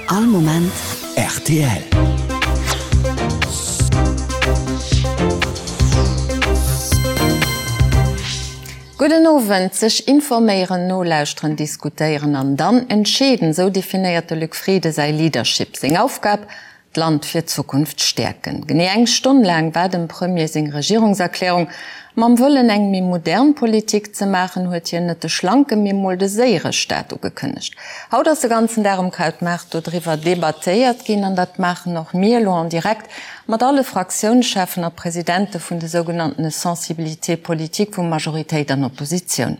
All Moment rtl. Gudden Owend. Sech informéieren, nolauschteren, diskutéieren an dann entscheeden, esou definéiert de Luc Frieden säi Leadership. Seng Aufgab, D'Land fir d'Zukunft stäerken. Genee eng Stonn laang war dem Premier seng Regierungserklärung. Mam Wëllen eng méi modern Politik ze maachen, huet hien net de schlanke mee mol de séiere Staat ugekënnegt. Haut ass de ganzen Dag um Krautmaart dodriwwer debattéiert ginn an dat maachen och mir elo en direct mat alle Fraktiounscheffen a Presidente vun de sougenanntene Sensibilités politiques vu Majoritéit an Oppositioun.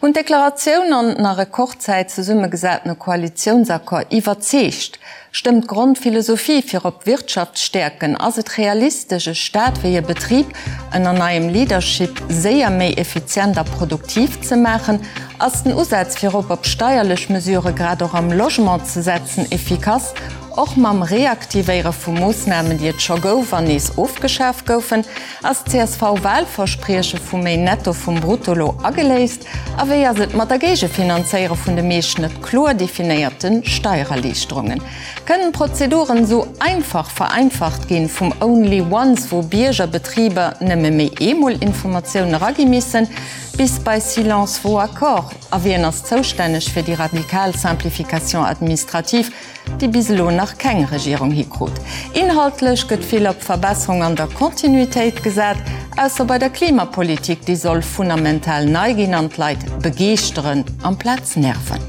Hunn d'Deklaratioun an den a Rekordzäit zesummegesatene Koalitiounsaccord iwwerzeegt? Stëmmt d'Grondphilosophie fir op d'Wirtschaft stäerken? Ass et realistesch, e Staat wéi e Betrib ënner neiem Leadership séier méi effizient a produktiv ze maachen? Ass den Usaz fir op op steierlech Mesurë grad och am Logement ze setzen efficace, och mam Reaktivéiere vu Moossnamen, déi et scho gouf an nees ofgeschaf goufen? Ass d'CSV-Wahlversprieche vu méi Netto vum Brutto lo ageléist? A wéi ass et mat der Géigefinanzéiere vun de meescht net kloer definéierte Steiererliichterungen? Kënnen d'Prozeduren esou einfach vereinfacht ginn, vum Only Once, wou Bierger, Betriber nëmme méi eemol Informatiounen eragi missen, bis bei Silence vaut accord? A wien ass zoustänneg fir déi radikal Simplification administrative, déi bis elo nach keng Regierung hikrut. Inhaltlech gëtt vill op Verbesserung an der Kontinuitéit gesat, ausser bei der Klimapolitik, déi soll fundamental nei ginn an d'Leit begeeschteren amplaz nerven.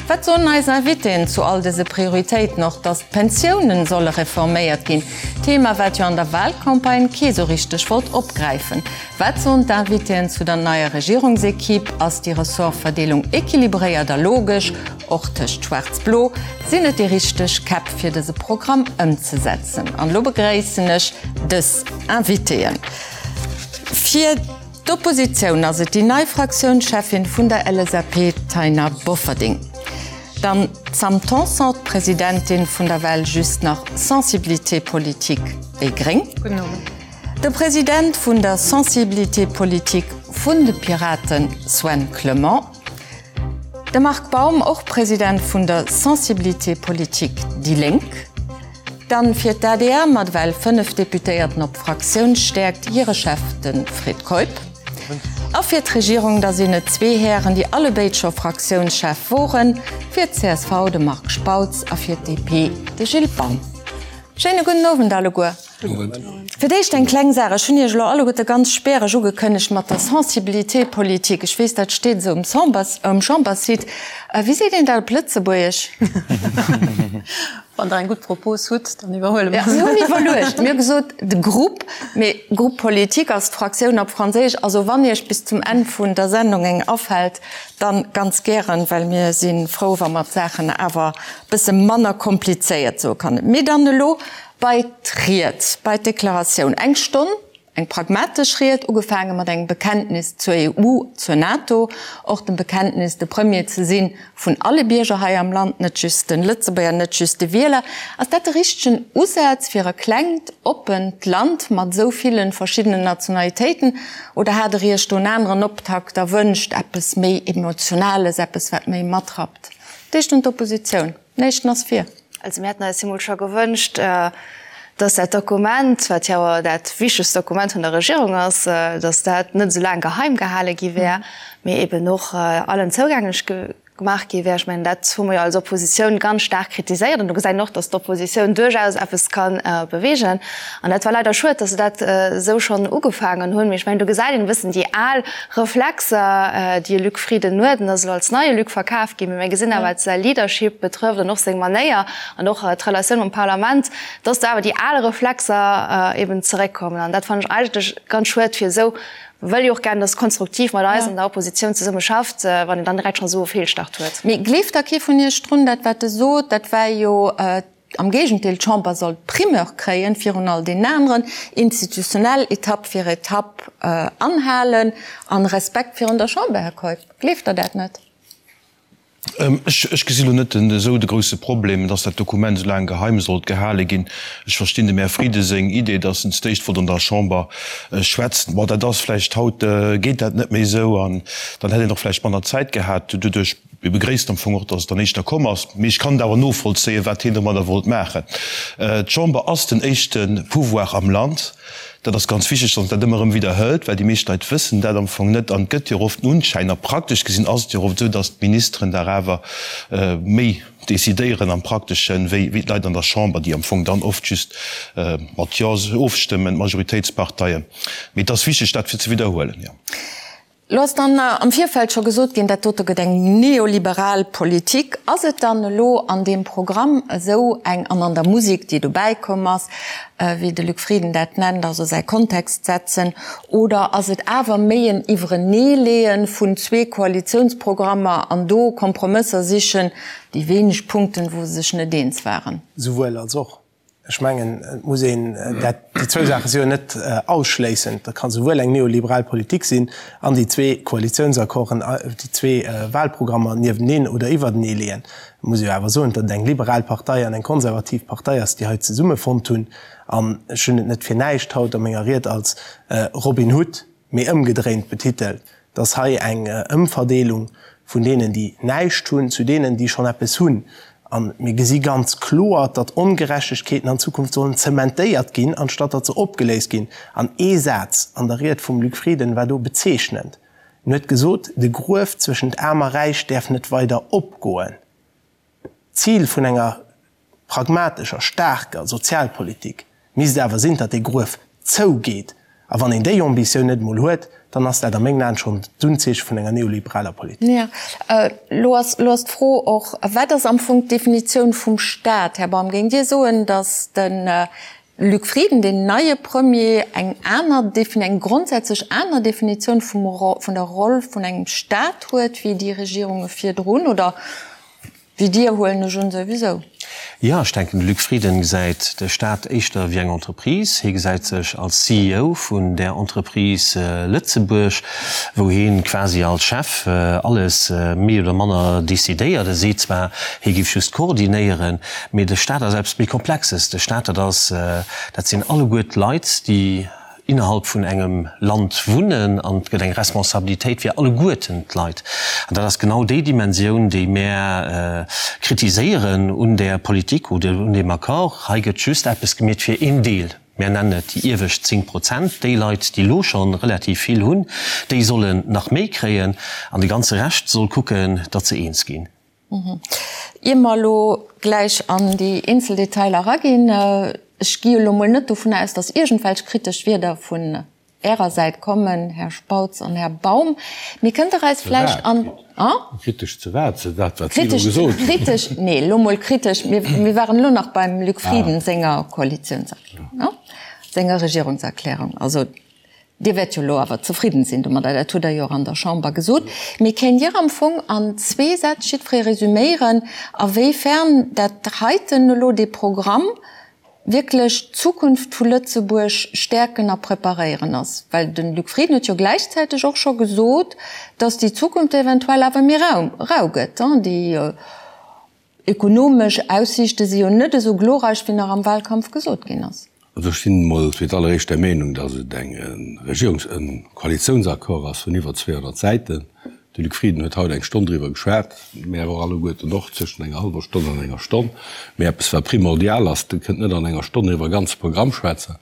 Wat soen eis Invitéen zu all dëse Prioritéiten? Och datt d'Pensiounen solle reforméiert ginn, Thema wat jo an der Wahlcampagne kee sou richteg wollt opgräifen. Wat soen d'Invitéen zu der neier Regierungsequipe? Ass déi Ressortverdeelung equilibréiert a logesch? Och tëscht Schwaarz-Blo sinn et déi richteg Käpp fir dëse Programm ëmzesetzen. An elo begréissen ech dës Invitéen. Fir d'Oppositioun ass et déi nei Fraktiounscheffin vun der LSAP, d'Taina Bofferding. Dann d'Sam Tanson, d'Presidentin vun der well just nach Sensibilité politique déi gréng. Gudden Owend. De President vun der Sensibilité politique vun de Piraten, Sven Clement. De Marc Baum, och President vun der Sensibilité politique déi Lénk. Dann fir d'ADR mat ewell 5 Deputéierten op Fraktiounsstäerkt, hire Chef de Fred Keup. A fir d'Regierung da sinn et zwee Hären, déi allebéid scho Fraktiounschef woren, fir d'CSV de Marc Spautz a fir d'DP de Gilles Baum. Schéine gudden Owend alleguer. Fir d'éischt eng kleng Saach, Ech hunn Iech elo alleguerte ganz späereg ugekënnegt mat der Sensibilité politique. Ech weess, dat steet esou um Chamberssite. Wéi seet een dat op Lëtzebuergesch? Wann Der eng gutt Propos hutt, dann iwwerhuele mer se. Mir hunn iwwerluecht. Mir hu gesot, de Groupe, mee Groupe politique ass d'Fraktioun op Franséisch. Also wann Iech bis zum Enn vun der Sendung eng afält, dann ganz gären, well mir si frou, wa mer d'Saachen awer e bësse manner komplizéiert soe kann. Mee dann elo Bei d'Ried, bei d'Deklaratioun. Eng Stonn, eng pragmatesch Ried, ugefaange mat engem Bekenntnis zur EU, zur NATO, och dem Bekenntnis, de Premier ze si vun alle Bierger hei am Land, net just de Lëtzebuerger, net just de Wieler. Ass dat de richtegen Usaz fir e klengt, oppent Land mat esou ville verschiddenen Nationalitéiten? Oder hat Der Iech do en aneren Optakt erwënscht, eppes méi Emotionales, eppes, wat méi matrappt? D'éischt un d'Oppositioun. Den éischten ass vir. Also mir hätten eis emol scho gewënscht, dass dat Dokument, wat jo awer dat wichtegst Dokument vun der Regierung ass, dass dat net esou laang geheim gehale gi wär, mee eben och allen zougänglech gemaach gi wär. Ech mengen, dat hu mer jo als Oppositioun ganz staark kritiséiert. An do gesäit een och, dass d'Oppositioun duerchaus eppes ka beweegen. An dat war leider schued, dass se dat esou schonn ugefaangen hunn. Mee ech mengen, do gesäit een e bëssen déi al Reflexer, déi e Luc Frieden huet, en ass elo als neie Luc verkaf ginn, mee mir gesinn awer, wat säi Leadership betrëfft an och seng Manéier an och d'Relatioun mam Parlament, dass do awer déi al Reflexer eben zeréckkommen. An dat fannen ech eigentlech ganz schued, fir esou wëll jo och gären, dass konstruktiv mat eis an der Oppositioun zesumme schafft, wann een dann direkt schonn esou e Feelstart huet. Mee gleeft da kee vun Iech drun, dat wat e sot, dat war jo Am Géigendeel, d'Chamber soll d'Primeur kréien virun all deenen aneren, institutionell Etapp fir Etapp anhalen an Respekt virun der Chamber. Här Keup, gleeft Der dat net? Ech gesi lo net esou de grouse Problem, dass dat Dokument esou laang geheim sollt gehale ginn. Ech verstinn dem Här Frieden seng Idee, dass en d'éischt wollt an der Chamber schwätzen. Bon, dat ass vläicht haut, geet dat net méi esou an dann hätt een och vläicht manner Zäit gehat doduerch. Mir begréissen am Fong och, dass et dann éischter komm ass. Mee ech kann et awer novollzéien, wat hien domadder wollt maachen. D'Chamber ass den éischte Pouvoir am Land. Dat ass ganz wichteg, dass een dat ëmmer erëm widderhëlt, well déi meescht Leit wëssen dat am Fong net. An et gëtt jo oft den Unschäin, a praktesch gesinn ass et jo oft esou, dass d'Ministeren dach awer méi decidéieren am Prakteschen, wéi d'Leit an der Chamber, déi am Fong dann oft just mat Jo ofstëmmen, d'Majoritéitsparteien. Mee et ass wichteg, dat fir ze widderhuelen, jo. Lo ass dann am Virfeld scho gesot ginn, dat dote gëtt eng neoliberal Politik. Ass et dann elo an deem Programm esou eng, an an der Musek, déi dobäi komm ass, wéi de Luc Frieden dat nennt, also säi Kontext setzen, oder ass et awer méi en Iwwereneeleeë vun zwee Koalitiounsprogrammer an do Kompromësser sichen, déi wéineg Punkten, wou se sech net eens waren? Souwuel als och. Ech mengen, et muss een dat, déi zwou Saache si jo net ausschléissend. Dat ka souwuel eng neoliberal Politik sinn an déi zwee Koalitiounsaccorden, déi zwee Wahlprogrammer nieweneen oder iwwertenee leeën. Et muss ee jo awer soen, datt et eng liberal Partei an eng konservativ Partei ass, déi hei zesummefonnt hunn. An ech hunn et net fir näischt haut a menger Ried als Robin Hood mee ëmgedréint betitelt, dass hei eng Ëmverdeelung vun deenen, déi näischt hunn, zu deenen, déi schonn eppes hunn. A mir gesi ganz kloer, datt Ongerechtegkeeten an Zukunft sollen zementéiert ginn, anstatt datt se opgeléist ginn. An ee Saz an der Ried vum Luc Frieden war do bezeechnend. En huet gesot, De Gruef zwëschent Aarm a Räich däerf net weider opgoen. D'Zil vun enger pragmatescher, staarker Sozialpolitik misst awer sinn, datt dee Gruef zougeet. A wann een déi Ambitioun net emol huet, dann ass dat a mengen Aen schonn d'Unzeeche vun enger neoliberaler Politik. Jo, elo ass, elo ass d'Fro och, Wat ass am Fong d'Definitioun vum Staat? Här Baum, géingt Dir soen, datt de Luc Frieden, deen neie Premier, eng aner, eng grondsätzlech aner Definitioun vum, vun der Roll vun engem Staat huet wéi déi Regierunge virdrun, oder wéi Dir, huelen ech un, souwisou? Jo, ech denken, de Luc Frieden gesäit de Staat éischter wéi eng Entreprise. Hie gesäit sech als CEO vun där Entreprise Lëtzebuerg, wou hie quasi als Chef alles méi oder manner decidéiert. E seet zwar, hie géif just koordinéieren, Mee de Staat ass eppes méi Komplexes. De Staat, dat ass, dat sinn alleguer d'Leit, déi innerhalb vun engem Land wunnen, an et gëtt eng Responsabilitéit fir alleguerten d'Leit. An dat ass genau déi Dimensioun, déi mär kritiséieren un där Politik oder un deem Accord. Hei gëtt just eppes gemeet fir een Deel. Mär nennen et déi iewescht 10 Prozent. Déi Leit, déi elo scho relativ vill hunn, déi sollen nach méi kréien, an de ganze Rescht soll kucken, datt se eens ginn. Ier mer elo gläich an déi eenzel Detailer eraginn, ech gi elo mol net dovun aus, datt iergendwelch kritesch Wierder vun Ärer Säit kommen, Här Spautz an Här Baum, mee kënnt Der eis vläicht an. Kritesch zu wat? Zu dat, wat si elo gesot hunn? Kritesch, nee, elo mol kritesch, mir waren elo nach beim Luc Frieden senger Koalitiounserklärung, senger Regierungserklärung. Also Dir wäert jo elo awer zefridden sinn domadder, dat hutt Der jo och an der Chamber gesot. Mee kéint Dir am Fong an zwee Sätz jiddweree resüméieren, awéifern dat heiten elo, dee Programm, wierklech d'Zukunft vu Lëtzebuerg stäerken a preparéieren ass? Well de Luc Frieden huet jo gläichzäiteg och scho gesot, datt déi Zukunft eventuell awer méi rau gëtt. Déi Ökonomesch Aussiichte si jo net esou glorreich, wéi nach am Wahlkampf gesot ginn ass. Also ech sinn emol fir d'alleréischt der Meenung, datt et eng Regierungs-, e Koalitiounsaccord ass vun iwwer 200 Säiten. De Luc Frieden huet haut eng Stonn driwwer geschwat, mär och alleguerten och, zwëschen enger hallwer Stonn an enger Stonn. Mee eppes wat primordial ass, Der kënnt net an enger Stonn iwwer e ganze Programm schwätzen.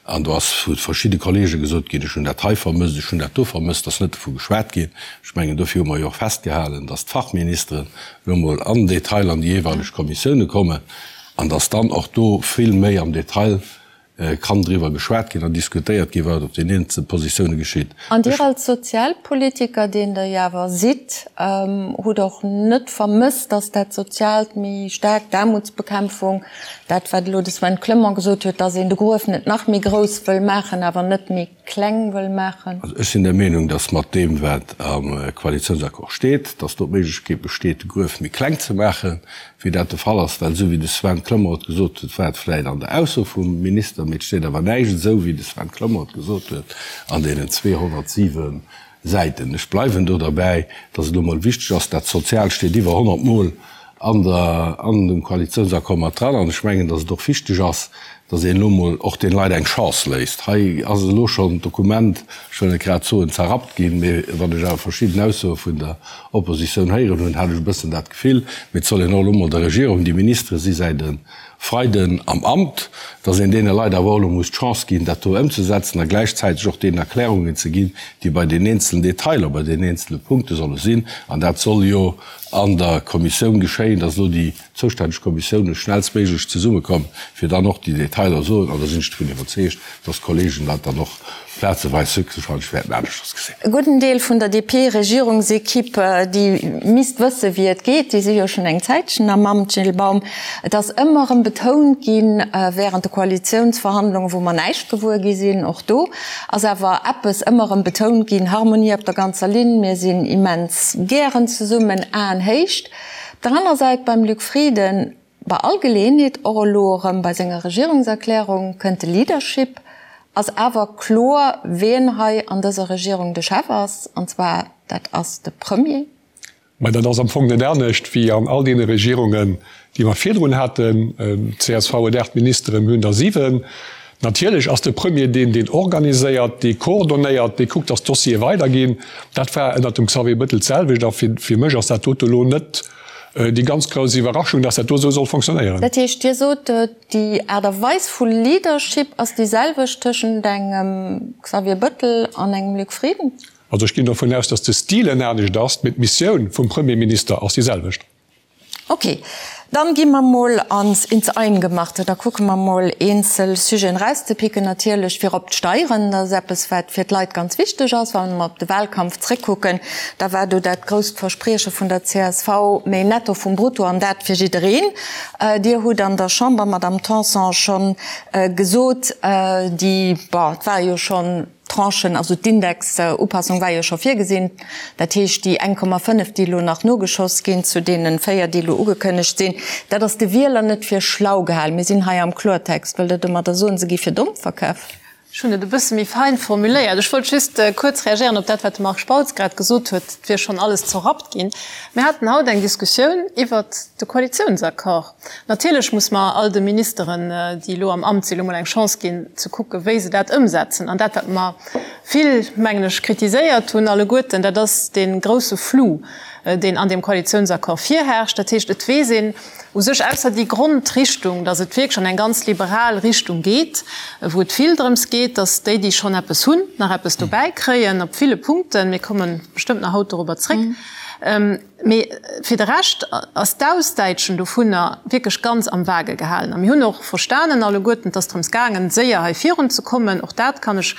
An do ass vu verschidde Kollege gesot ginn, ech hunn dat hei vermësst, ech hunn dat do vermësst, ass net dovu geschwat ginn. Ech mengen, dofir hu mer jo och festgehalen, datt d'Fachministeren elo emol am Detail an déi jeeweileg Kommissioune kommen an datt dann och do vill méi am Detail kann driwwer geschwat ginn an diskutéiert ginn, wat op den eenzelne Positioune geschitt. An Dir als Sozialpolitiker, deen Der jo awer sidd, hutt och net vermësst, datt dat Soziaalt méi staark, d'Aarmutsbekämpfung, Dat, wat elo de Sven Clement gesot huet, dass een de Gruef net nach méi grouss wëll maachen, awer net méi kleng wëll maachen. Also ech sinn der Meenung, dass mat deem, wat am Koalitiounsaccord steet, dass do d'Méiglechkeet besteet, de Gruef méi kleng ze maachen, wéi dat de Fall ass. Well esou wéi de Sven Clement et gesot huet, war et vläicht an der Ausso vum Minister, mee et steet awer näischt esou, wéi de Sven Clement et gesot huet, an deenen 207 Säiten. Ech bleiwen do derbäi, dass et elo mol wichteg ass, dat Soziaalt steet iwwer 100 Mol an der, an dem Koalitiounsaccord mat dran. An ech mengen, dass et och wichteg ass, Dass een elo emol och deene Leit eng Chance léisst. Hei ass elo schonn d'Dokument, ech wëll net grad soen zerrappt ginn, mee wann ech awer verschidden Aussoe vun der Oppositioun héieren hunn, hat ech e bëssen dat Gefill. Mee et soll een och elo emol der Regierung, déi Ministere si säit e Freiden am Amt, dass een deene Leit awer och elo muss d'Chance ginn, dat do ëmzesetzen a gläichzäiteg och deenen Erklärungen ze ginn, déi bei den eenzelen Detailer, bei den eenzele Punkte solle sinn. An dat soll jo an der Kommissioun geschéien, dass elo déi zoustänneg Kommissioune schnellstméiglech zesummekomm, fir dann och déi Detailer soen. An da sinn ech dovun iwwerzeegt, dass d'Kollegen dat dann och plazeweis höchstwahrscheinlech wäerten aneschters gesinn. E gudden Deel vun der DP-Regierungsekipp, déi misst wësse wéi et geet, déi si jo schonn eng Zäitchen am Amt, Gilles Baum. Et ass ëmmer erëm betount ginn, während de Koalitiounsverhandlungen, wou mer näischt gewuer gi sinn, och do ass awer eppes ëmmer erëm betount ginn, Harmonie op der ganzer Linn, mir sinn immens gären zesummen, Aenhéicht. Op der aner Säit beim Luc Frieden, bei all Geleeënheet, och elo erëm bei senger Regierungserklärung, kënnt de Leadership, ass awer kloer, wien hei an dëser Regierung de Chef ass, an zwar dat ass de Premier. Mä dat ass am Fong net anescht wéi an all deene Regierungen, déi mer virdrun haten. Csv huet 8 Ministeren, mir hunn der 7. Natierlech ass de Premier deen, deen organiséiert, dee coordonéiert, dee kuckt, datt d'Dossiere weiderginn. Dat war ënnert dem Xavier Bettel d'selwecht a fir mech ass dat dote elo net déi ganz grouss Iwwerraschung, datt dat do esou soll fonctionnéieren. Dat heescht, Dir sot, déi Aart a Weis vu Leadership ass déi selwecht tëschent engem Xavier Bettel an engem Luc Frieden? Also ech ginn dovun aus, datt de Stil en anescht ass, mee d'Missioun vum Premierminister ass déi selwecht. Ok, dann gi mer mol ans ins Eingemachte, da kucke mer mol eenzel Sujeten erauszepicken. Natierlech virop d'Steieren, dat ass eppes wat fir d'Leit ganz wichteg ass. Wa mer op de Wahlkampf zréckkucken, da war do dat grousst Versprieche vun der csv, méi Netto vum Brutto an dat fir jiddereen. Dir hutt an der Chamber, Madamm Tanson, schonn gesot, déi, bon, et war jo schonn, Tranchen, also d'Indexupassung war jo scho virgesinn, dat heescht déi 1,5, déi elo nach nogeschoss ginn zu deene 4, déi elo ugekënnegt sinn, dat ass de Wieler net fir schlau gehalen. Mir sinn hei am Kloertext. Wëllt Der domadder soen, se gi fir domm verkaf? Ech hunn et e bësse méi fein formuléiert. Ech wollt just kuerz reagéieren op dat, wat de Marc Spautz grad gesot huet, et wier schonn alles zerrappt ginn. Mir haten haut eng Diskussioun iwwert de Koalitiounsaccord. Natierlech muss mer all de Ministeren, déi elo am Amt sinn, elo mol eng Chance ginn, ze kucken, wéi se dat ëmsetzen. An dat, wat mer vill, mengen ech, kritiséiert hunn alleguerten, dat ass dee grouse Flou, deen an deem Koalitionsaccord virherrscht. Dat heescht, et weess een u sech, ausser déi Grondrichtung, datt et wierklech an eng ganz liberal Richtung geet, wou et vill drëms geet, datt déi, déi schonn eppes hunn, nach eppes dobäi kréien op ville Punkten. Mir komme bestëmmt nach haut dorobber zréck. Mee fir de Rescht ass d'Ausdäitschen dovunner wierklech ganz am Vage gehalen. A mir hunn och verstanen alleguerten, et ass drëms gaangen, séier hei virunzekommen. Och dat kann ech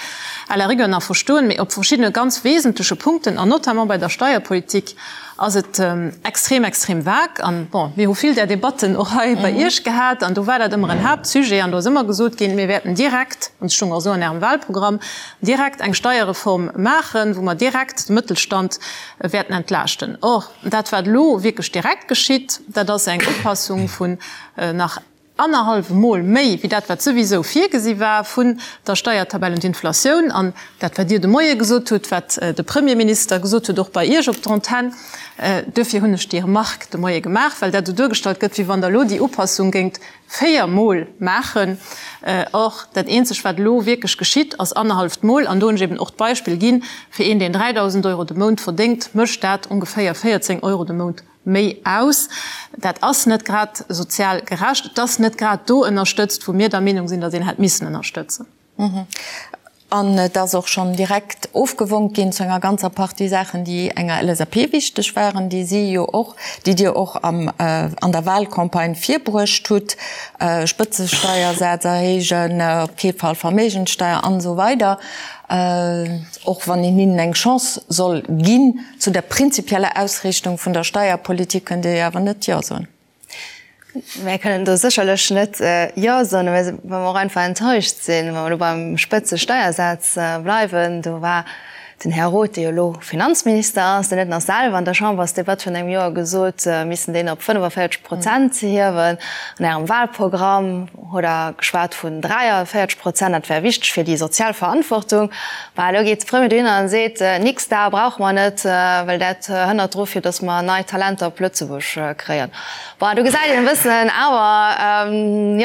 à la rigueur nach verstoen. Mee op verschiddene ganz wesentleche Punkten, an notamment bei der Steierpolitik, ass et extrem, extrem vag. An, bon, mir hu vill där Debatten och hei bei Iech gehat, an do war dat ëmmer en Haaptsujet. An do ass ëmmer gesot ginn, mir wäerten direkt, an et stoung och esou an Ärem Wahlprogramm, direkt eng Steierreform maachen, wou mer direkt de Mëttelstand wäerten entlaaschten. Or, dat wat elo wierklech direkt geschitt, dat ass eng Upassung vun nach annerhallwem Mol méi wéi dat wat souwisou virgesi war vun der Steiertabell un d'Inflatioun. An dat wat Dir de Moie gesot hutt, wat de Premierminister gesot huet, och bei Iech op der Antenn, duerfir hunn ech déi Remarque de Moie gemaach, well dat esou duergestallt gëtt, wéi wann Der elo déi Upassung géingt 4 Mol maachen. Or, dat eenzeg wat elo wierklech geschitt, ass annerhalleft Mol, an do hunn ech eben och d'Beispill ginn, fir een deen 3.000 Euro de Mount verdéngt, mécht dat ongeféier 14 Euro de Mount méi aus. Dat ass net grad sozial gerecht. Et ass net grad do ënnerstëtzt, wou mir der Meenung sinn, datt een hätt missen ënnerstëtzen. An et ass och schonn direkt ofgewonk ginn zu enger ganzer Partie Saachen, déi enger LSAP wichteg waren, déi si jo och, déi Dir och am, an der Wahlcampagne virbruecht hutt, Spëtzesteiersaz erhéijen, op kee Fall Verméigenssteier an esou weider. Och wann een hinnen eng Chance soll ginn, zu der prinzipieller Ausriichtung vun der Steierpolitik kënnt Dir jo awer net Jo soen. Mär kënnen do sécherlech net Jo soen, well mer och einfach enttäuscht sinn. Wa mer elo beim Spëtzesteiersaz bleiwen, do war den Här Roth, dee jo elo Finanzminister ass, deen huet nach selwer an der Chambersdebatt virun engem Joer gesot, mir missten deen op 45 Prozent hiewen. An Ärem Wahlprogramm hutt Der geschwat vun 43 Prozent, dat wär wichteg fir déi sozial Verantwortung. Mä elo geet de Premier dohinner an seet, Nix da, brauche mer net, well dat hënnert dru fir datt mer nei Talenter op Lëtzebuerg kréien. Bon, do gesäit een e bëssen awer,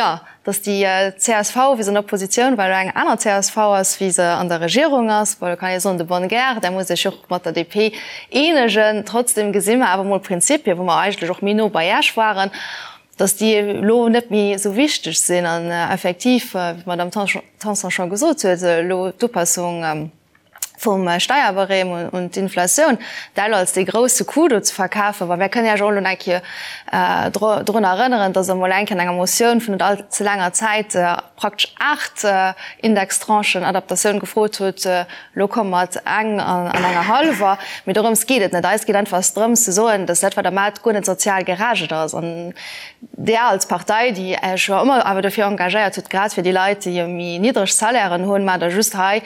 jo. Datt déi csv, wéi se an der Oppositioun war, elo eng aner csv ass, wéi se an der Regierung ass, bon, do kann ee soen, de bonne guerre, där muss sech och mat der DP eenegen. Trotzdem gesi mer awer mol Prinzipien, wou mer eigentlech och méi no bei Iech waren, datt déi elo net méi esou wichteg sinn. An effektiv, wéi d'Madame Tanson scho gesot huet, elo d'Upassung, vum Steierbarème un d'Inflatioun, dat elo als dee grousse Coup do ze verkafen, well mir kënnen Iech och elo nach eng Kéier drun erënneren, dass Der emol eng Kéier an enger Motioun vun net all ze laanger Zäit praktesch 8 Indextranchen Adaptatioun gefrot hutt. Elo komme mat eng an enger hallwer. Mee dorëms geet et net. Eis geet einfach drëms ze soen, dass dat, wat Der maacht, guer net sozial gerecht ass. An Der als Partei, déi Iech jo ëmmer awer dofir engagéiert hutt, grad fir déi Leit, déi méi niddreg Salairen hunn, maacht Der just hei,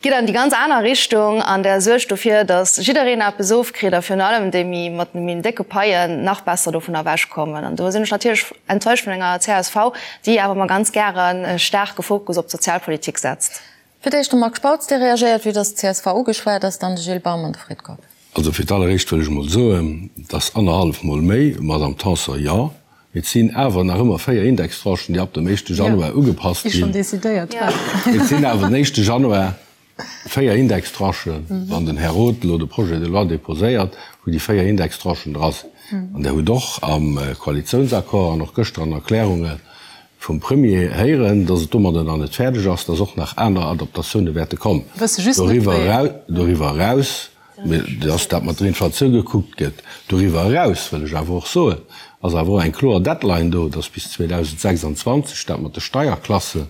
gitt an déi ganz aner Richtung an Der suergt dofir, datt jiddereen eppes ofkritt a virun allem déi méi mat de méi décke Paien nach besser dovun ewechkommen. An do sinn ech natierlech enttäuscht vun enger csv, déi awer ëmmer ganz gären e staarke Fokus op d'Sozialpolitik setzt. Fir d'éischt de Marc Spautz, dee reagéiert, vue datt d'CSV ugeschwat ass, dann de Gilles Baum an de Fred Keup. Also fir d'alleréischt wëll ech emol soen, dass annerhallef Mol méi, Madame Tanson, jo, mee et sinn awer nach ëmmer 4 Indextranchen, déi ab dem éischte Januar ugepasst ginn. Et sinn awer den éischte Januar 4 Indextranchen, wann den Här Roth elo de Projet de loi déposéiert, wou déi 4 Indextranchen dra sinn. An Der hutt och am Koalitiounsaccord an och gëschter an Erklärunge vum Premier héieren, dass et domadder nach net fäerdeg ass, dass och nach aner Adaptatioune wäerte kommen. Doriwwer eraus, dass dat mat der Inflatioun gekuckt gëtt. Doriwwer eraus wëll ech awer och soen, ass awer och eng kloer Deadline do, dass bis 2026 dat mat de Steierklasse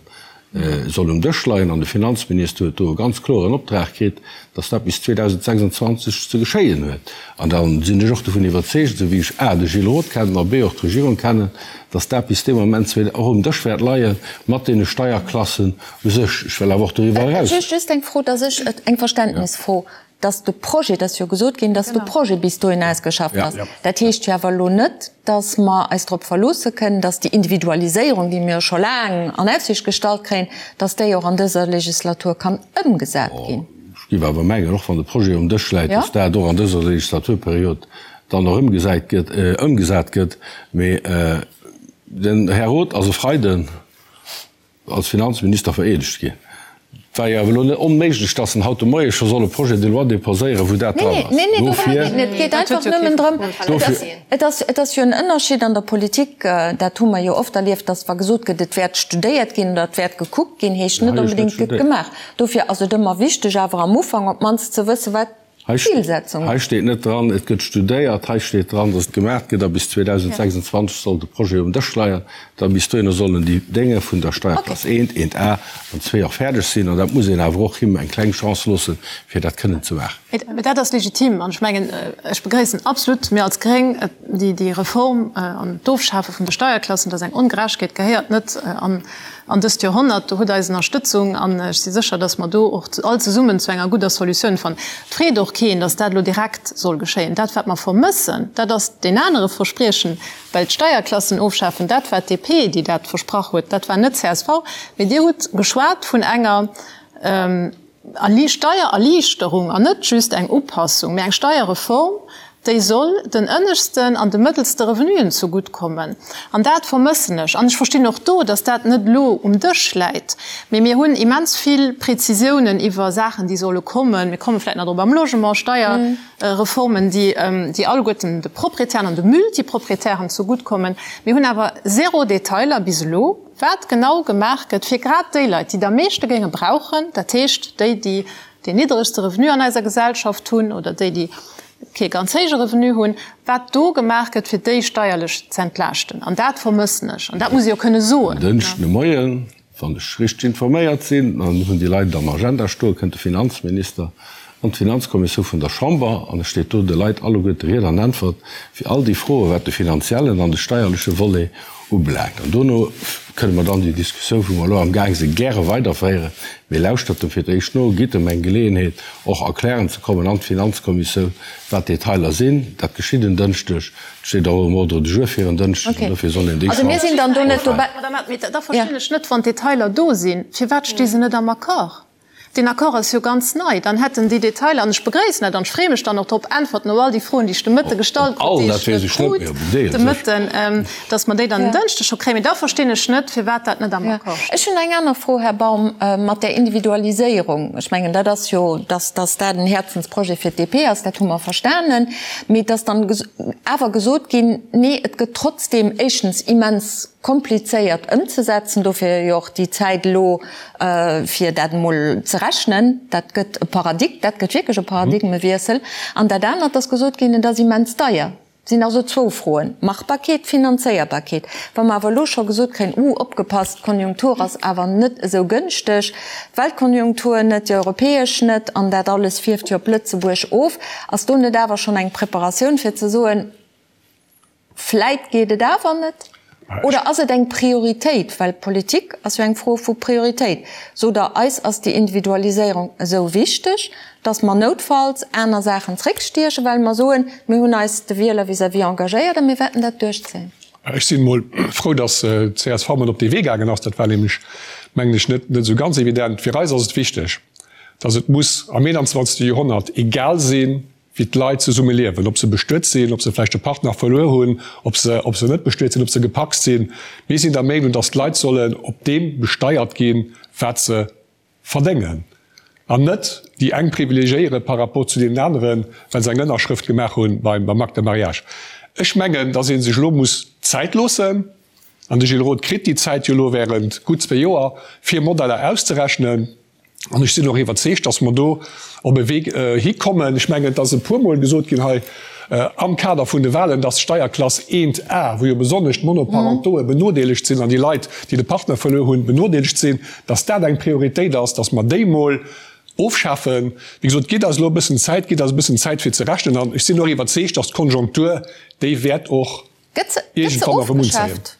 soll um Dësch leien. An de Finanzminister huet do e ganz kloren Optrag kritt, dass dat bis 2026 ze geschéien huet. An da sinn ech och dovun iwwerzeegt, esou wéi ech a de Gilles Roth kennen a b och d'Regierung kennen, dass dat bis dee Moment och um Dësch wäert leie mat deene Steierklassen u sech. Ech wëll awer och doriwwer eraus. Just eng Fro, dass ech, eng Verständnisfro, dass de Projet, et ass jo gesot ginn, dass de Projet bis dohin ausgeschafft ass. Dat heescht jo awer elo net, dass mer eis drop verloosse kënnen, dass déi Individualiséierung, déi mir jo scho laang an Aussicht gestallt kréien, dass déi och an dëser Legislatur kann ëmgesat ginn. Ech géif awer mengen, och wann de Projet um Dësch läit, dass dat och an dëser Legislaturperiod dann och ëmgesat gëtt, ëmgesat gëtt. Mee den Här Roth ass e Freiden als Finanzminister vereedegt ginn. Et war jo awer elo net onméiglech, dass en haut de Moie scho soll e Projet de loi déposéieren, wou dat dran ass. Nee, nee, dorëm geet et net. Et geet einfach nëmmen drëm, et ass, et ass jo en Ënnerschied an der Politik, dat hu mer jo oft erlieft, dass wa gesot gëtt, et wäert studéiert ginn oder et wäert gekuckt ginn, heescht net onbedéngt, et gëtt gemaach. Dofir ass et ëmmer wichteg, awer am Ufank op d'mannst ze wëssen, wat D'Zilsetzung. Hei steet net dran, et gëtt studéiert. Hei steet dran, datt et gemaach gëtt a bis 2026 soll de Projet um Dësch leien. Da bis dohinner sollen déi Dénge vun der Steierklass I, 1a an 2 och fäerdeg sinn. An dat muss een awer och him eng kleng Chance loossen, fir dat kënnen ze maachen. Mee dat ass legitim an ech mengen, ech begréissen absolut, mir als Gréng, déi Reform an d'Ofschafe vun de Steierklassen. Dat ass eng Ongerechtegkeet, gehéiert net an An dëst Joerhonnert, do hutt eis Ënnerstëtzung an ech si sécher, datt mer do och all zesummen zu enger gudder Solutioun fannen. Et freet och keen, datt dat elo direkt soll geschéien. Dat, wat mer vermëssen, dat ass deen anere Verspriechen, well d'Steierklassen ofschafen, dat war d'DP, déi dat versprach huet, dat war net csv. Mee Dir hutt geschwat vun enger Steiererliichterung an net just eng Upassung, mee eng Steierreform, déi soll den ënneschten an de mëttelste Revenuen zegutt kommen. An dat vermëssen ech. An ech verstinn och do, datt dat net elo um Dësch läit. Mee mir hunn immens vill Prezisiounen iwwer Saachen, déi solle kommen. Mir komme vläicht nach drop am Logement, Steierreformen, déi alleguerten de Proprietären an de Multiproprietären zegutt kommen. Mir hunn awer zéro Detailer bis elo. Wat genau gemaach gëtt fir grad déi Leit, déi et am meeschte géinge brauchen, dat heescht déi, déi deen niddregste Revenu an eiser Gesellschaft hunn oder déi, déi kee ganz héije Revenu hunn, wat do gemaach gëtt, fir déi steierlech z'entlaaschten. An dat vermëssen ech. An dat muss ee jo kënne soen. En Dënschden de Moien, wann ech richteg informéiert sinn, dann hunn déi Leit et am Agenda stoen, kënnt de Finanzminister an d'Finanzkommissioun vun der Chamber an e steet do de Leit alleguerte Ried an Äntwert fir all déi Froen, wat de finanziellen an de steierleche Volet ubelaangt. An dono kënne mer dann déi Diskussioun, wou mer elo amgaang sinn, gäre weiderféieren. Mee lauschtert em fir d'éischt no, gitt em eng Geleeënheet, och erklären ze kommen an d'Finanzkommissioun, wat d'Detailer sinn. Dat geschitt en Dënschdeg. Et steet och um Ordre du jour fir en Dënschdeg an dofir soll een déi Chance ofwaarden. Madame Abt, mee da verstinn ech net, wann d'Detailer do sinn, firwat sti se net am Accord? Deen Accord ass jo ganz nei. Dann hätten déi Detailer, an ech begréissen dat an ech freeë mech dann och drop, Äntwerten op all déi Froen, déi ech de Mëtte gestallt krut, déi ech net krut de Mëtten, dass mer déi dann en Dënschdeg scho kréien. Mee da verstinn ech net, firwat dat net am Accord steet. Ech hunn eng aner Fro, Här Baum, mat där Individualiséierung. Ech mengen, dat ass jo, dass dass dat en Häerzensprojet fir d'DP ass, dat hu mer verstanen. Mee et ass dann awer gesot ginn, nee, et gëtt trotzdeem éischtens immens komplizéiert ëmzesetzen, dofir jo och déi Zäit elo, fir dat emol ze rechnen. Dat gëtt e Paradig, dat gëtt wierklech e Paradigmewiessel. An dat anert ass gesot ginn, et ass immens deier. Et sinn also zwou Froen, Machbarkeet, Finanzéierbarkeet. Wa mer awer elo scho gesot kréien, Uh, opgepasst, d'Konjunktur ass awer net esou gënschteg, d'Weltkonjunktur net, déi europäesch net, an dat alles fierft jo op Lëtzebuerg of, ass do net awer schonn eng Preparatioun fir ze soen, Vläit geet et awer net? Oder ass et eng Prioritéit? Well Politik ass jo eng Fro vu Prioritéit. Sot Der, eis ass déi Individualiséierung esou wichteg, datt mer noutfalls aner Saachen zréckstiechen, well mer soen, mir hunn eis de Wieler vis-à-vis engagéiert a mir wäerten dat duerchzéien? Ech sinn emol frou, datt d'CSV mat op dee Wee gaangen ass. Dat war nämlech, mengen ech, net esou ganz evident. Fir eis ass et wichteg, datt et muss am 21. Joerhonnert egal sinn, wéi d'Leit zesumme liewen, ob se bestuet sinn, ob se vläicht e Partner verluer hunn, ob se, ob se net bestuet sinn, ob se gepacst sinn. Mir sinn der Meenung, dass d'Leit sollen op deem besteiert ginn, wat se verdéngen, an net déi eng privilegiéiere par rapport zu deenen aneren, well se eng Ënnerschrëft gemaach hu beim Acte de mariage. Ech mengen, dass ee sech elo muss Zäit loossen, an de Gilles Roth kritt déi Zäit jo elo während gutt zwee Joer, fir Modeller auszerechnen. An ech sinn och iwwerzeegt, dass mer do op e Wee hikommen. Ech mengen, et ass e puermol gesot ginn hei am Kader vun de Wahlen, dass d'Steierklass 1a, wou jo besonnesch d'Monoparentoe benodeelegt sinn an déi Leit, déi de Partner verluer hunn, benodeelegt sinn, dass dat eng Prioritéit ass, dass mer déi mol ofschafen. Wéi gesot, gitt eis elo e bëssen Zäit, gitt eis e bëssen Zäit fir ze rechnen. An ech sinn och iwwerzeegt, dass d'Konjunktur, déi wäert och Gëtt se iergendwann erëm unzéien. ofgeschaaft?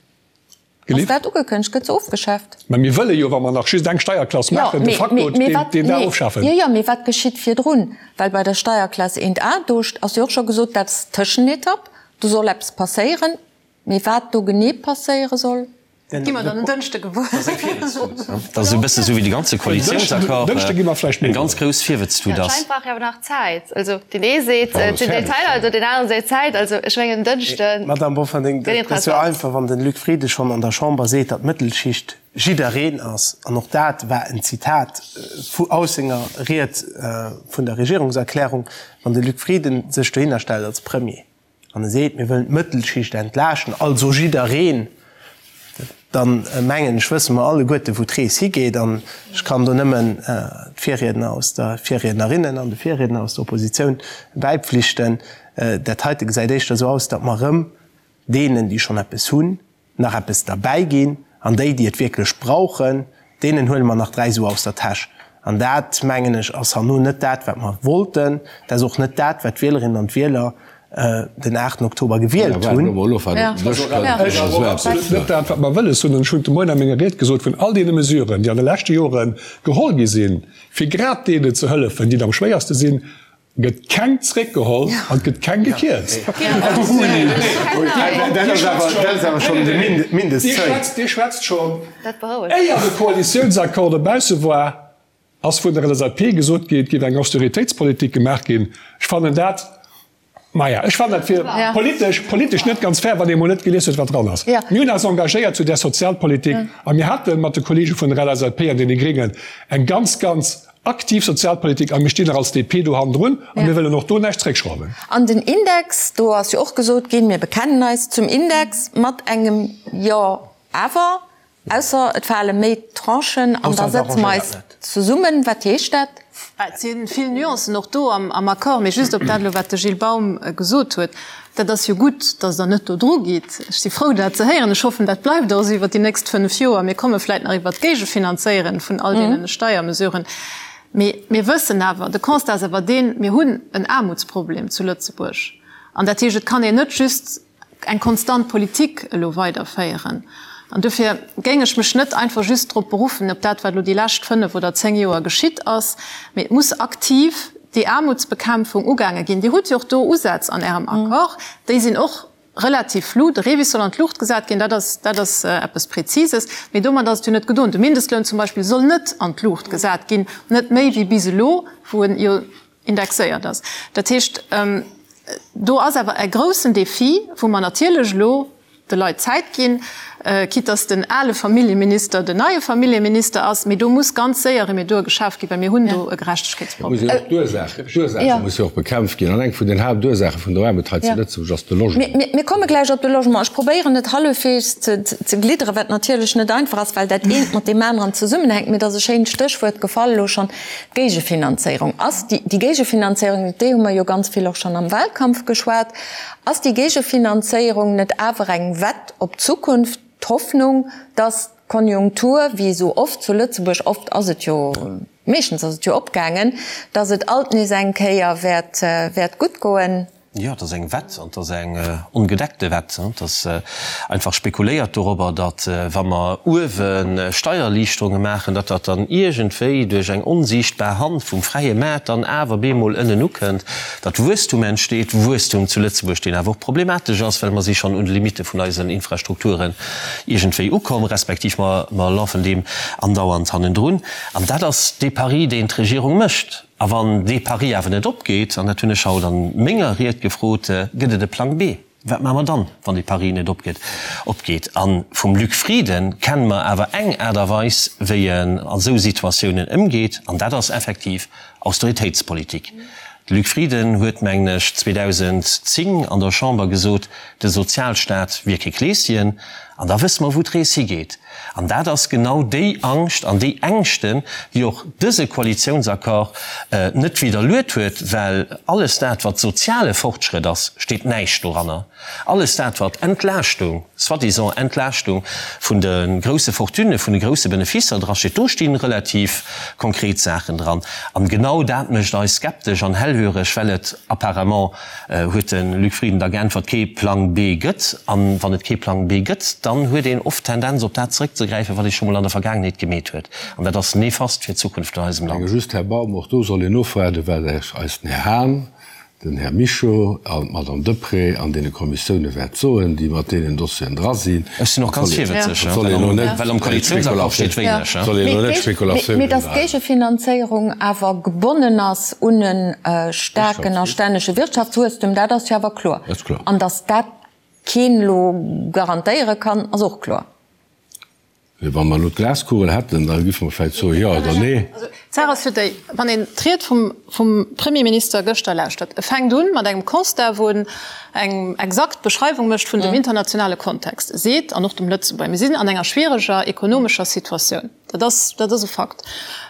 Ass dat ugekënnegt? Gëtt se ofgeschaaft? Mä mir wëlle jo, wa mer nach just eng Steierklass maachen, de facto deen da ofschafen. Jo, jo, mee wat geschitt virdrun? Well bei der Steierklass 1a, do ass jo och scho gesot, dat ass d'Tëschenetapp, do soll eppes passéieren. Mee wat do genee passéiere soll? Dat gi mer dann en Dënschde gewuer. Dat ass esou e bësse sou wéi de ganze Koalitiounsaccord eng ganz grouss Virwëtztut ass. Anscheinend brauch ee awer nach Zäit. Also deen ee seet, et sinn Detailer, also deen anere seet Zäit. Also ech mengen en Dënschde Madame Bofferding, gëtt dat ass jo interessant. einfach, wann den Luc Frieden schonn an der Chamber seet, datt d'Mëttelschicht jiddereen ass, an och dat war en Zitat vu aus senger Ried vun der Regierungserklärung, wann de Luc Frieden sech dohinner stellt als Premier Wann e seet, mir wëllen d'Mëttelschicht entlaaschten, also jiddereen, dann mengen ech, wësse mer alleguerte wou d'Rees higeet. An ech kann do nëmmen d'Virriedner aus der, d'Virriednerinnen an de Virriedner aus der Oppositioun bäipflichten, Dat heite gesäit éischter esou aus, datt mer erëm deenen, déi schonn eppes hunn, nach eppes derbäi ginn an déi, déi et wierklech brauchen, deenen huele mer nach 3 Su aus der Täsch. An dat, mengen ech, ass herno net dat, wat mer wollten. Dat ass och net dat, wat d'Wielerinnen an d'Wieler den 8 Oktober gewielt hunn. Ech absolut net dat, wat mer wëlles hunn. An ech hunn de Moien a menger Ried gesot, vun all deene Mesuren, déi an de leschte Jore geholl gi sinn, fir grad deenen ze hëllefen, déi et am schwéierste sinn, Gëtt keng zréckgeholl an et gëtt keng gekierzt. Dir schwätzt schonn, éier de Koalitiounsaccord dobausse war, ass vun der LSAP gesot ginn, et géif eng Austeritéitspolitik gemaach ginn. Ech fannen dat, maja, ech fannen dat fir politesch, politesch net ganz fair, wann ee mol net gelies huet, wat dran ass. Mir hunn eis engagéiert zu där Sozialpolitik a mir hate mat de Kollege vun der LSAP an deene Gréngen eng ganz, ganz Aktiv Sozialpolitik, a mir stinn och als DP do hannendrun a mir wëllen och do näischt zréckschrauwen. An den Index, do ass jo och gesot ginn, mir bekennen eis zum Index mat engem Jo awer, ausser et fale méi Tranchen an da sëtze mer eis zesummen. Wat heescht dat? Et si vill Nuancen och do am Accord, mee just op dat elo, wat de Gilles Baum gesot huet, Dat ass jo gutt, datt Der net do dru gitt. Ech si frou, dat ze héieren. Ech hoffen, dat bleift och esou iwwert déi nächst fënnf Joer. Mir komme vläicht nach iwwert d'Géigefinanzéieren vun all deene Steiermesuren. Mee mir wëssen awer, de Constat ass awer deen, Mir hunn en Aarmutsproblem zu Lëtzebuerg. An dat heescht, et kann een net just eng konstant Politik elo weiderféieren. An dofir géing ech mech net einfach just drop beruffen, op dat, wat elo déi lescht fënnf oder zéng Joer geschitt ass, mee et muss aktiv déi Aarmutsbekämpfung ugaange ginn. Dir hutt jo och do Usätz an Ärem Accord, déi sinn och. Relativ flou. De REVIS soll an d'Luucht gesat ginn, dat ass, dat ass eppes Präzises. Mee domat ass et jo net gedoen. De Mindestloun zum Beispill soll net an d'Luucht gesat ginn, net méi wéi bis elo, wou en jo indexéiert ass. Dat heescht, do ass awer e groussen Défi, wou mer natierlech elo de Leit Zäit ginn, quitte dass den ale Familljeminister den neie Familljeminister ass, mee do muss ganz séier Remedur geschaf ginn, well mir hunn do e Gerechtegkeetsproblem. D'Ursaache musse jo och bekämpft ginn. An eng vun den Haaptursaache vun der Aarmut hei zu Lëtzebuerg ass de Logement. Mir komme gläich op de Logement. Ech probéieren et hallefweegs ze glidderen, wat natierlech net einfach ass, well dat eent mat deem aneren zesummenhänkt. Mee et ass e schéint Stéchwuert gefall elo schonn, d'Géigefinanzéierung. Ass déi Géigefinanzéierung, iwwer déi hu mer jo ganz vill och schonn am Wahlkampf geschwat, Ass déi Géigefinanzéierung net awer eng Wett op d'Zukunft, d'Hoffnung, dass d'Konjunktur, wéi esou oft zu Lëtzebuerg, oft ass et jo, meeschtens ass et jo opgaangen, dass et alt nees eng Kéier wäert, wäert gutt goen? Jo, et ass eng Wett, an et ass eng ongedeckte Wett. Et ass einfach spekuléiert dorobber, datt wa mer uewe Steiererliichterunge maachen, datt dat dann iergendwéi duerch eng onsiichtbar Hand vum fräie Maart dann awer bemol ënnen ukënnt. Datt Wuesstum entsteet, Wuesstum zu Lëtzebuerg, deen awer och problematesch ass, well mer si schonn un de Limitte vun eisen Infrastrukturen iergendwéi ukomm, respektiv mer mer lafen deem andauernd hannendrun. An dat ass dee Pari, deen d'Regierung mécht. A wann dee Pari awer net opgeet, an dat hunn ech haut a menger Ried gefrot, gëtt et e Plang B. Wat maache mer dann, wann dee Pari net opgeet? Opgeet. A vum Luc Frieden kenne mer awer eng Aart a Weis, wéi en a sou Situatiounen ëmgeet, an dat ass effektiv Austeritéitspolitik. De Luc Frieden huet, mengen ech, 2010 an der Chamber gesot, de Sozialstaat wier kee Kleeschen. An da wësse mer, wou d'Rees higeet. An dat ass genau déi Angscht an déi Ängschten, déi och dëse Koalitiounsaccord net widderluet huet, well alles dat, wat soziale Fortschrëtt ass, steet näischt doranner. Alles dat, wat Entlaaschtung, soi-disant Entlaaschtung vun de grousse Fortunen, vun de grousse Beneficer drasteet, do sti relativ konkret Saachen dran. An genau dat mécht eis skeptesch an hellhöreg, well et apparemment Huet de Luc Frieden da geäntwert, kee Plang B gëtt. An wann et kee Plang B gëtt, dann huet een oft d'Tendenz op dat zeréckzegräifen, wat ee scho mol an der Vergaangenheet gemeet huet. An dat ass nefast fir d'Zukunft vun eisem Land. Just, Här Baum, och do soll een ofwaarden, wat eis den Här Hahn, den Här Mischo an d'Madame Deprez an deene Kommissioune wäert soen, déi mat deenen Dossieren dra sinn. Ech sinn och ganz virwëtzeg, well am Koalitiounsaccord steet wéineg. Soll een elo net Spekulatiounen Mee datt d'Géigefinanzéierung awer gebonnen ass un e staarken a stännege Wirtschaftswuesstum, dat ass jo awer kloer. An datt dat keen elo garantéiere kann, ass och kloer. Wa mer elo d'Glaskugel hätten, da giffe mer vläicht soe jo oder nee. D'Saach ass jo déi, wann een d'Ried vum vum Premierminister gëschter lauschtert, e fänkt un mat engem Constat, wou en eng exakt Beschreiwung mécht vun dem internationale Kontext. E seet, an och dem Lëtzebuerger, mir sinn an enger schwiereger ekonomescher Situatioun. Dat ass, dat ass e Fakt.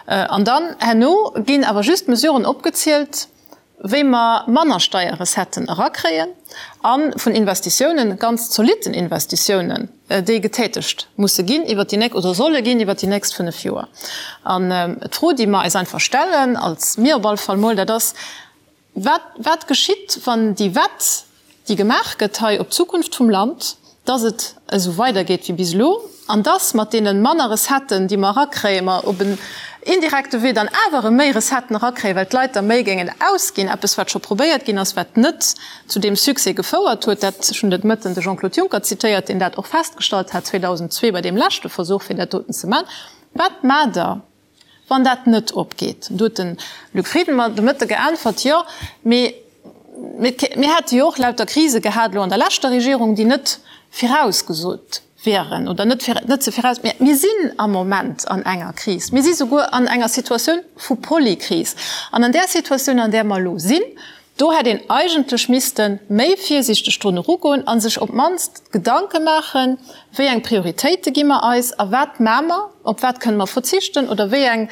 An dann herno ginn awer just Mesuren opgezielt, wéi mer manner Steierrecetten erakréien a vun Investitiounen, ganz zolitten Investitiounen, déi getätegt musse ginn iwwert déi nächst oder solle ginn iwwert déi nächst fënnf Joer. An d'Fro, déi mer eis einfach stellen, als mir op alle Fall mol, dat ass, Wat, wat geschitt, wann déi Wett, déi gemaach gëtt hei op d'Zukunft vum Land, dass et esou weidergeet wéi bis elo an dass mat deene manner Recetten, déi mer erakréien, mer op en indirekte Wee dann awer erëm méi Recetten erakréien, well d'Leit da méi géingen ausginn, eppes wat scho probéiert ginn ass, wat net zu deem Succès gefouert huet. Dat, ech hunn de Mëtten de Jean-Claude Juncker zitéiert, deen dat och festgestallt hat 2002 bei deem leschte Versuch, fir dat doten ze maachen. Wat maacht Der? Wann dat net opgeet, do huet de Luc Frieden mer de Mëtte geäntwert, jo, mee mir hätte jo och lauter Krise gehat elo an der leschter Regierung, déi net virausgesot wieren oder net net ze viraus. Mä mir sinn am Moment an enger Kris. Mir si souguer an enger Situatioun vu Polykris. An an där Situatioun, an där mer elo sinn, Do hätt een eigentlech misste méi virsiichteg drun erugoen a sech op d'mannst Gedanke maachen, wéi eng Prioritéite gi mer eis a wat maache mer, op wat kënne mer verzichten oder wéi eng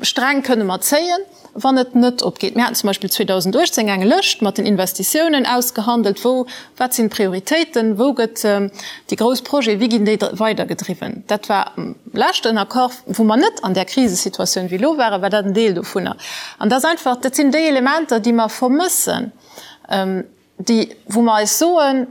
Sträng kënne mer zéien, wann et net opgeet. Mir haten zum Beispill 2018 eng Lëscht mat den Investitiounen ausgehandelt, wou, wat sinn d'Prioritéiten, wou gëtt déi grouss Projete, wéi ginn déi weidergedriwwen. Dat war am leschten Accord, wou mer net an där Krisesituatioun wéi elo waren, war dat en Deel dovunner. An dat ass einfach, dat sinn déi Elementer, déi mer vermëssen, déi, wou mer eis soen,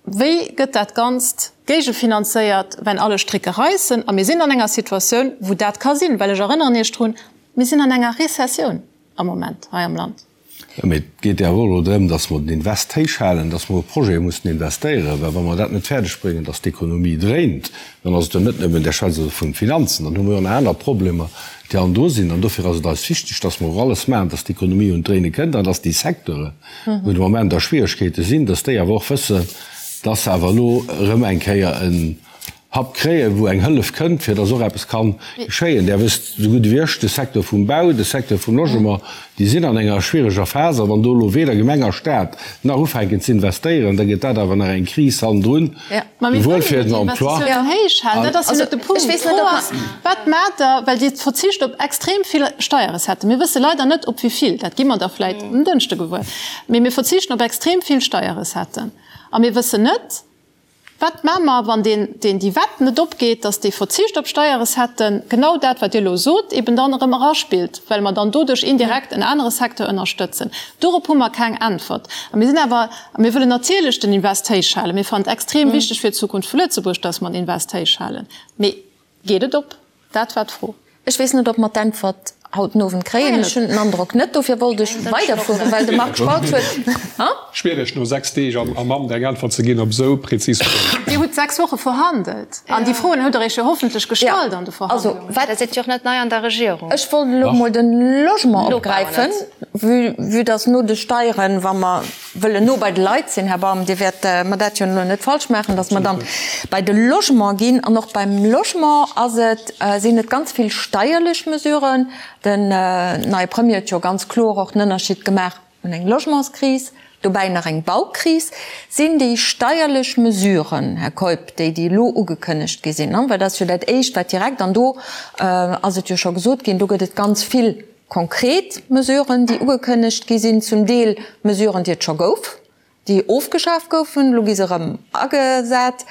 Wéi gëtt dat Ganzt géigefinanzéiert, wenn alle Stricke reissen? A mir sinn an enger Situatioun, wou dat ka sinn, well ech erënneren Iech drun, mir sinn an enger Rezessioun am Moment hei am Land. Jo, mee et geet jo awer och elo drëm, dass mer den Invest héich halen, dass mer och Projete mussen investéieren, well wa mer dat net fäerdeg bréngen, dass d'Ekonomie dréint, dann ass et jo net nëmmen, Där schwätzt elo vun Finanzen, dann hu mer jo nach aner Problemer, déi an do sinn. An dofir ass et eis wichteg, dass mer och alles maachen, dass d'Ekonomie un d'Dréine kënnt an dass déi Secteuren, wou de Moment a Schwieregkeete sinn, dass déi awer och wëssen, dass se awer elo erëm eng Kéier en Hub kréien, wou eng Hëllef kënnt, fir dass och eppes ka geschéien. Där wësst esou gutt ewéi ech, de Secteur vum Bau, de Secteur vum Logement, déi sinn an enger schwiereger Phas. A wann do elo weder Gemeng a Stat nach ufänken ze investéieren, da gëtt dat awer nach eng Kris hannendrun, souwuel fir den Emploi. Dat ass jo net de Punkt. D'Fro ass, Wat maacht Der, well Dir verzicht op extrem vill Steierrecetten. Mir wësse leider net, op wéi vill, dat gi mer da vläicht en Dënschde gewuer, mee mir verzichten op extrem vill Steierrecetten a mir wëssen net, Wat maache mer, wann deen, deen déi Wett net opgeet, dass dee Verzicht op Steierrecetten, genau dat, wat Dir elo sot, eben dann erëm eraspillt, well mer dann doduerch indirekt en anere Secteur ënnerstëtzen? Dorop hu mer keng Äntwert. A mir sinn awer, a mir wëllen natierlech den Invest héich halen. Mir fannen et extrem wichteg fir d'Zukunft vu Lëtzebuerg, dass mer den Invest héich halen. Mee geet et op? Dat war d'Fro. Ech weess net, ob mer d'Äntwert haut den Owend kréien. Ech hunn den Androck net. Dofir wollt ech weiderfueren, well de Marc Spautz huet. Schwiereg, no 6 Deeg am Amt eng Äntwert ze ginn op esou prezis Froen. Dir hutt 6 Woche verhandelt an déi Froen hutt Der Iech jo hoffentlech gestallt an de Verhandlungen. Da sidd Dir och net nei an der Regierung. Ech wollt elo emol de Logement opgräifen, vue dass no de Steieren, wa mer wëllen no bei de Leit sinn, Här Baum, Dir wäert mer dat jo elo net falsch maachen, dass mer dann bei de Logement ginn. An och beim Logement ass et, sinn et ganz vill steierlech Mesuren. Den neie Premier huet jo ganz kloer och den Ënnerschied gemaach, un eng Logementskris, dobäi nach eng Baukris. Sinn déi steierlech Mesuren, Här Keup, déi, déi elo ugekënnegt gi sinn, well dat ass jo dat Éischt, wat direkt, an do ass et jo scho gesot ginn, do gëtt et ganz vill Konkret Mesuren, déi ugekënnegt gi sinn, zum Deel Mesuren, déi et scho gouf, déi ofgeschaf goufen, elo gi se erëm agesat.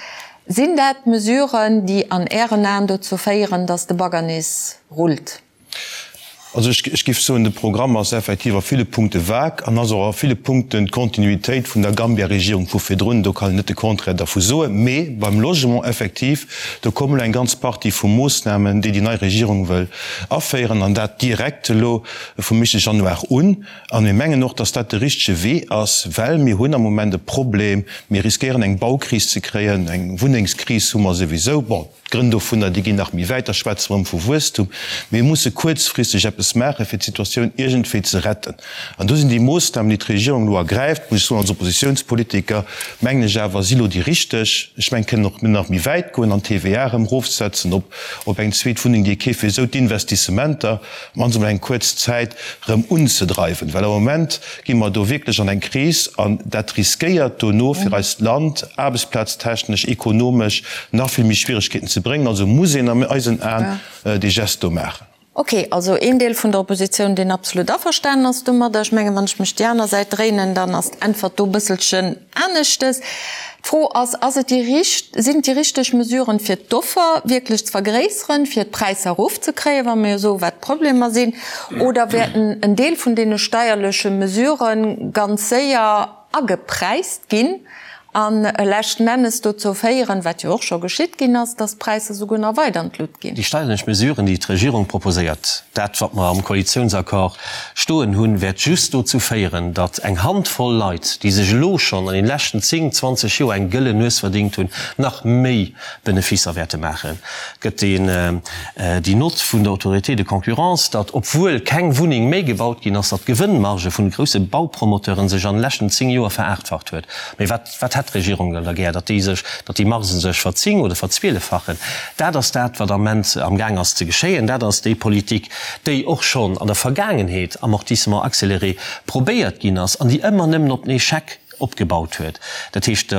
Sinn dat Mesuren, déi an Ären Aen dozou féieren, datt de Bagger nees rullt? Also ech géif soen, de Programm ass effektiv a ville Punkte vague an ass och a ville Punkten d'Kontinuitéit vun der Gambia-Regierung vu virdrun. Do kann een net de Contraire dervu soen. Mee beim Logement effektiv, do kommen elo eng ganz Partie vu Moossnamen, déi déi nei Regierung wëll Aféieren, an dat direkt elo vum éischte Januar un. A mir mengen och, dass dat de richtege Wee ass, well mir hunn am Moment e Problem, mir riskéieren eng Baukris ze kréien, eng Wunnengskris hu mer souwisou. Bon, d'Grënn dovunner, déi ginn nach méi wäit, da schwätze mer erëm vu Wuesstum. Mee mir musse kuerzfristeg eppes maachen, fir d'Situatioun iergendwéi ze retten. An do sinn déi Moossnamen, déi d'Regierung elo ergräift, muss ech soen, als Oppositionspolitiker, mengen ech awer, si elo déi richteg. Ech mengen, kënnen och nach méi wäit goen an d'TVA erëm erofsetzen op op eng zweet Wunneng, déi ee keeft, fir esou d'Investissementer mannst emol eng kuerz Zäit erëm unzedreiwen. Well am Moment gi mer do wierklech an eng Kris an dat riskéiert dono fir eist Land aarbechtsplaztechnesch, ekonomesch nach vill méi Schwieregkeeten ze bréngen. Also muss een an eisen Aen dee Geste do maachen. Ok, also een Deel vun der Oppositioun, deen absolut averstanen ass domadder. Ech mengen, wann ech mech déi aner Säit dréinen, dann ass d'Äntwert do e bësselchen aneschtes. D'Fro ass, Ass et déi richt, sinn et déi richteg Mesuren, fir d'Offer wierklech ze vergréisseren, fir d'Präisser erofzekréien, wa mir jo soen, wat d'Problemer sinn, oder wäerten en Deel vun deene steierleche Mesurë ganz séier agepräist ginn an leschten Ennes dozou féieren, wat jo och scho geschitt ginn ass, dass d'Präisser souguer nach weider an d'Lut ginn. Déi steierlech Mesuren, déi d'Regierung proposéiert, dat wat mer am Koalitiounsaccord stoen hunn, wäert just dozou féieren, datt eng Handvoll Leit, déi sech elo schonn an den leschten 10, 20 Joer eng gëllen Nues verdéngt hunn, nach méi Beneficer wäerte maachen. Et gëtt déi Nott vun der Autorité de concurrence, datt, obwuel keng Wunneng méi gebaut ginn ass, datt d'Gewënnmarge vun de grousse Baupromoteuren sech an de leschten 10 Joer veraachtfacht huet. Mee wat, wat hätt d'Regierung dann da gär? Datt déi sech, datt déi Margen sech verzing oder verzwieleffachen? Dat ass dat, wat am Ament am Gaang ass ze geschéien. Dat ass déi Politik, déi och schonn an der Vergaangenheet, Amortissement accéléré, probéiert ginn ass an déi ëmmer nëmmen op den Echec opgebaut huet. Dat heescht,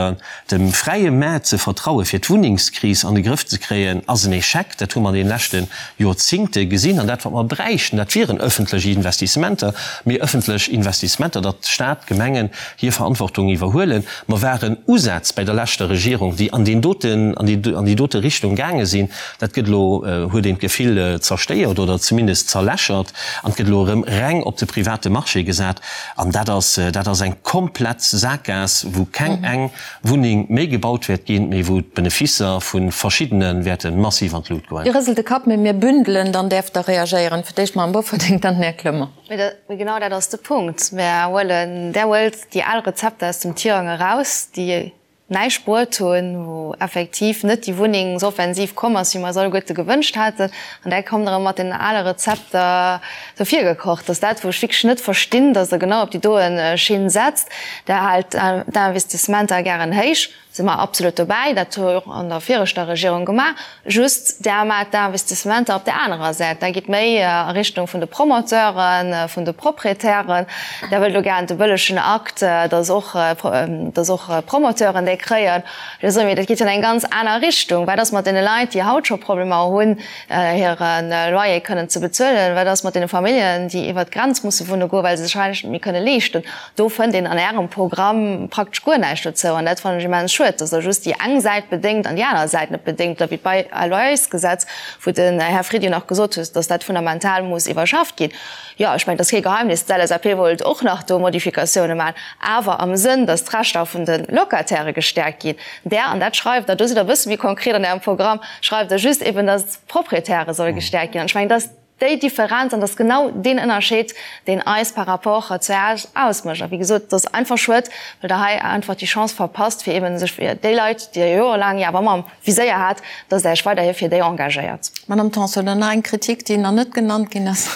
dem fräie Maart ze vertrauen, fir d'Wunnengskris an de Grëff ze kréien, ass en Echec. Dat hu mer an deene leschte Joerzingte gesinn. An dat, wat mer bräichten, dat wieren ëffentlech Investissementer, mee ëffentlech Investissementer, datt Staat, Gemengen hir Verantwortung iwwerhuelen. Mer waren Usätz bäi der leschter Regierung, déi an deen doten, an déi, an déi dote Richtung gaange sinn. Dat gëtt elo, huet een d'Gefill, zerstéiert oder zumindest zerlächert an et gëtt elo erëm reng op de private Marché gesat. An dat ass, dat ass eng komplett Saakgaass. Sakgaass, wou keng eng Wunneng méi gebaut wäert ginn, mee wou d'Beneficer vu verschiddene wäerte massiv an d'Lut goen. Dir rëselt de Kapp, mee mir bündelen, dann däerft Der reagéieren. Fir d'éischt d'Madame Bofferding, dann den Här Clement. Mee genau dat ass de Punkt. Mär huelen, Der huelt déi al Rezepter aus dem Tirang eraus, déi näischt bruet hunn, wou effektiv net déi Wunnengsoffensiv komm ass, wéi mer eis alleguerte gewënscht haten, an da kommt Der erëm mat den ale Rezepter do virgekocht. Dat ass dat, wou ech wierklech net verstinn, dass Der genau op déi doen Schinn setzt. Der haalt d'Investissementer gären héich, si mer absolut dobäi, dat hu mer och an der viregter Regierung gemaach, just Der maacht d'Investissementer op där anerer Säit, Der gitt méi a Richtung vun de Promoteuren, vun de Proprietären, Der wëllt elo gären de bëllegen Akt, dass och, dass och Promoteuren dee kréien. Ech soe mir, dat geet jo an eng ganz aner Richtung. Wat ass mat deene Leit, déi haut scho Problemer hunn, hire Loyer kënnen ze bezuelen? Wat ass mat deene Familljen, déi iwwert d'Grenz musse wunne goen, well se sech hei net méi kënne leeschten? Do fënnt een an Ärem Programm praktesch guer näischt dozou. An dat fannen ech immens schued, dass Der just déi eng Säit bedéngt an déi aner Säit net bedéngt. Oder wéi d'Bail-à-loyersgesetz, wou den Här Fried jo nach gesot huet, dass dat fundamental muss iwwerschafft ginn. Jo, ech mengen, et ass kee Geheimnis, d'LSAP wollt och nach do Modifikatioune maachen, awer am Sënn, dass d'Rechter vun de Locatairë gestäerkt ginn. Där, an dat schreift Der, do sidd Der e bësse méi konkret an Ärem Programm, schreift Der just eben, dass d'Proprietäre solle gestäerkt ginn. An ech mengen, dat ass déi Differenz an dat ass genau deen Ënnerscheed, deen eis par rapport zu Iech ausmécht. A wéi gesot, et ass einfach schued, well Der hei einfach déi Chance verpasst, fir eben sech fir déi Leit, déi Der jorelaang jo awer ëmmer am Viséier hat, dass Der Iech weiderhi fir déi engagéiert. Madame Tanson, dann nach eng Kritik, déi nach net genannt ginn ass.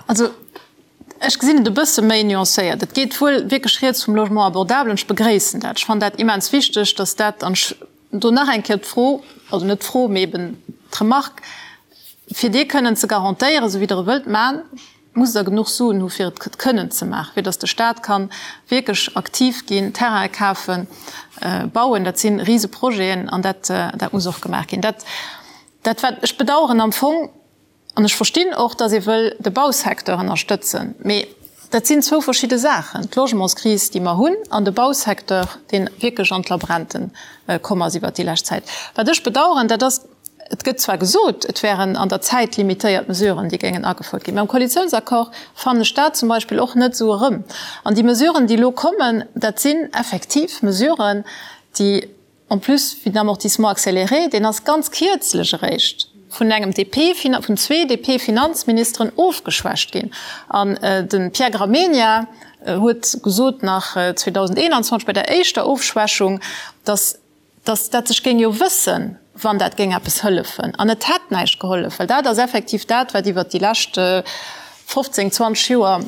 Also, ech gesinn et e bësse méi nuancéiert. Et geet wuel wierklech rieds vum Logement abordable an ech begréissen dat. Ech fannen dat immens wichteg, dass dat, an ech do nach eng Kéier d'Fro, also net d'Fro, mee eben d'Remarque, fir dee kënnen ze garantéieren, esou wéi Der e wëllt maachen, musst Der genuch Suen hu fir et kënnen ze maachen, fir datt de Stat ka wierklech aktiv ginn, Terraine kafen, bauen. Dat si Riseprojeten an dat, dat muss och gemaach ginn. Dat, dat wat ech bedauern am Fong, An ech verstinn och, datt ee wëll de Bausecteur ënnerstëtzen, mee dat sinn zwou verschidde Saachen, d'Logementskris, déi mer hunn, an de Bausecteur, dee wierklech an d'Labrente komm ass iwwert déi lescht Zäit. Wat ech bedauern, dat ass, et gëtt zwar gesot, et wären an der Zäit limitéiert Mesuren, déi géingen agefouert ginn, mä am Koalitiounsaccord fannen ech dat zum Beispill och net esou erëm. An déi Mesuren, déi elo kommen, dat sinn effektiv Mesuren, déi En plus, wéi den Amortissement accéléré, deen ass ganz kierzlech eréischt vun engem DP, vun zwee DP-Finanzministeren ofgeschwächt ginn. An de Pierre Gramegna huet gesot nach 2021 bei der éischter Ofschwächung, datt datt dat sech géing jo wëssen, wann dat géing eppes hëllefen. An et hätt näischt gehollef, well dat ass effektiv dat, wat iwwert déi lescht 15, 20 Joer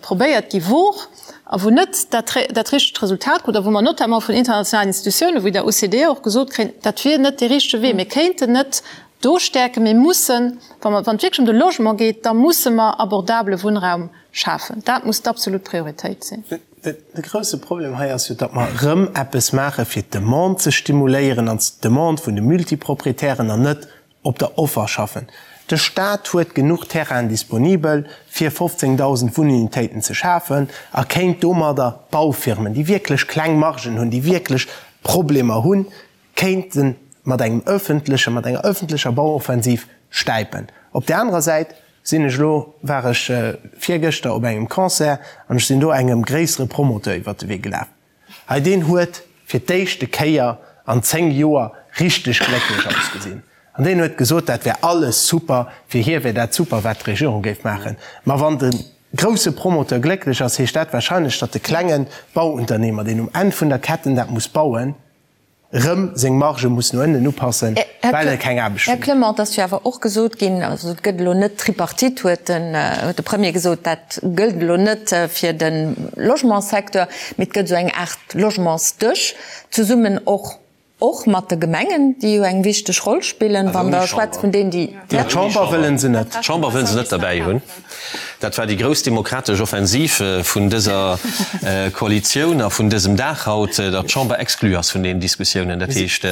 probéiert gi wor a wou net dat dat richtegt Resultat krut a wou mer notamment vun internationalen Institutiounen wéi der OCDE och gesot kréien, dat wier net dee richtege Wee. Mir kéinten net do stäerken, mir mussen, wa mer, wann et wierklech ëm de Logement geet, da musse mer abordabele Wunnraum schafen. Dat muss d'absolut Prioritéit sinn. De grouse Problem hei ass jo, datt mer erëm eppes maache fir d'Demande ze stimuléieren an d'Demande vun de Multiproprietären an net op der Offer schaffen. De Staat huet genuch Terrainen disponibel, fir 15.000 Wunnunitéiten ze schafen a kéint domadder Baufirmen, déi wierklech kleng Margen hunn, déi wierklech Problemer hunn, kéinte mat engem öffentlechen, mat enger öffentlecher Bauoffensiv stäipen. Op där anerer Säit sinn ech elo, war ech virgëschter op engem Concert an ech sinn do engem gréissere Promoteur iwwert de Wee gelaf. Hei deen huet fir d'éischte Kéier an 10 Joer richteg glécklech ausgesinn. An deen huet gesot, dat wär alles super, fir hie wär dat super, wat d'Regierung géif maachen. Ma wann de grousse Promoteur glécklech ass, heescht dat wahrscheinlech, datt de klenge Bauunternehmer, deen um Enn vun der Ketten dat muss bauen, rëm seng Marge muss no ënnen upassen, well e keng Aarbecht Här Clement, et ass jo awer och gesot ginn, also et gëtt elo net d'Tripartite, huet den, huet de Premier gesot, dat gëllt elo net fir de Logementssecteur, mee et gëtt esou eng Aart Logementsdësch, zesummen och, och mat de Gemengen, déi jo eng wichteg Roll spillen, wann Der schwätzt vun deenen, déi. D'Chamber wëllen se net. D'Chamber wëllen se net derbäi hunn. Dat war déi grouss demokratesch Offensiv vun dëser Koalitioun a vun dësem Dag haut, datt d'Chamber exclue ass vun deenen Diskussiounen. Dat heescht,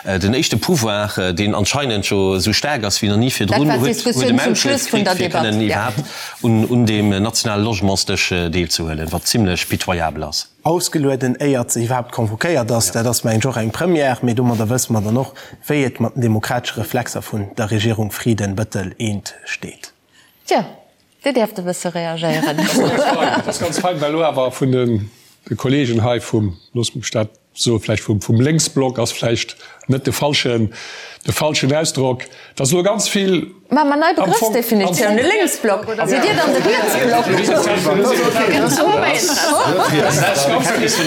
den éischte Pouvoir, deen anscheinend jo esou staark ass wéi nach ni virdrun, huet e Maulkuerf kritt, fir kënnen iwwerhaapt un deem nationale Logementsdësch deelzehuelen, wat zimlech pitoyabel ass. Ausgelueden, éiert se iwwerhaapt convoquéiert ass. Dat ass, mengen ech, och eng Première. Mee domadder wësse mer dann och, wéi et mat den demokratesche Reflexer vun der Regierung Frieden-Bettel eent steet. Tjo, Dir däerft e bësse reagéieren. Dat ass ganz fein, well elo awer vun de. de Kollegen hei vum, looss mech dat soen, vläicht vum, vum Lénksblock ass vläicht net de falschen, de falschen Ausdrock, dass elo ganz vill Maache mer nei Begrëffsdefinitioun, e Lénksblock, sidd Dir dann de Rietsblock?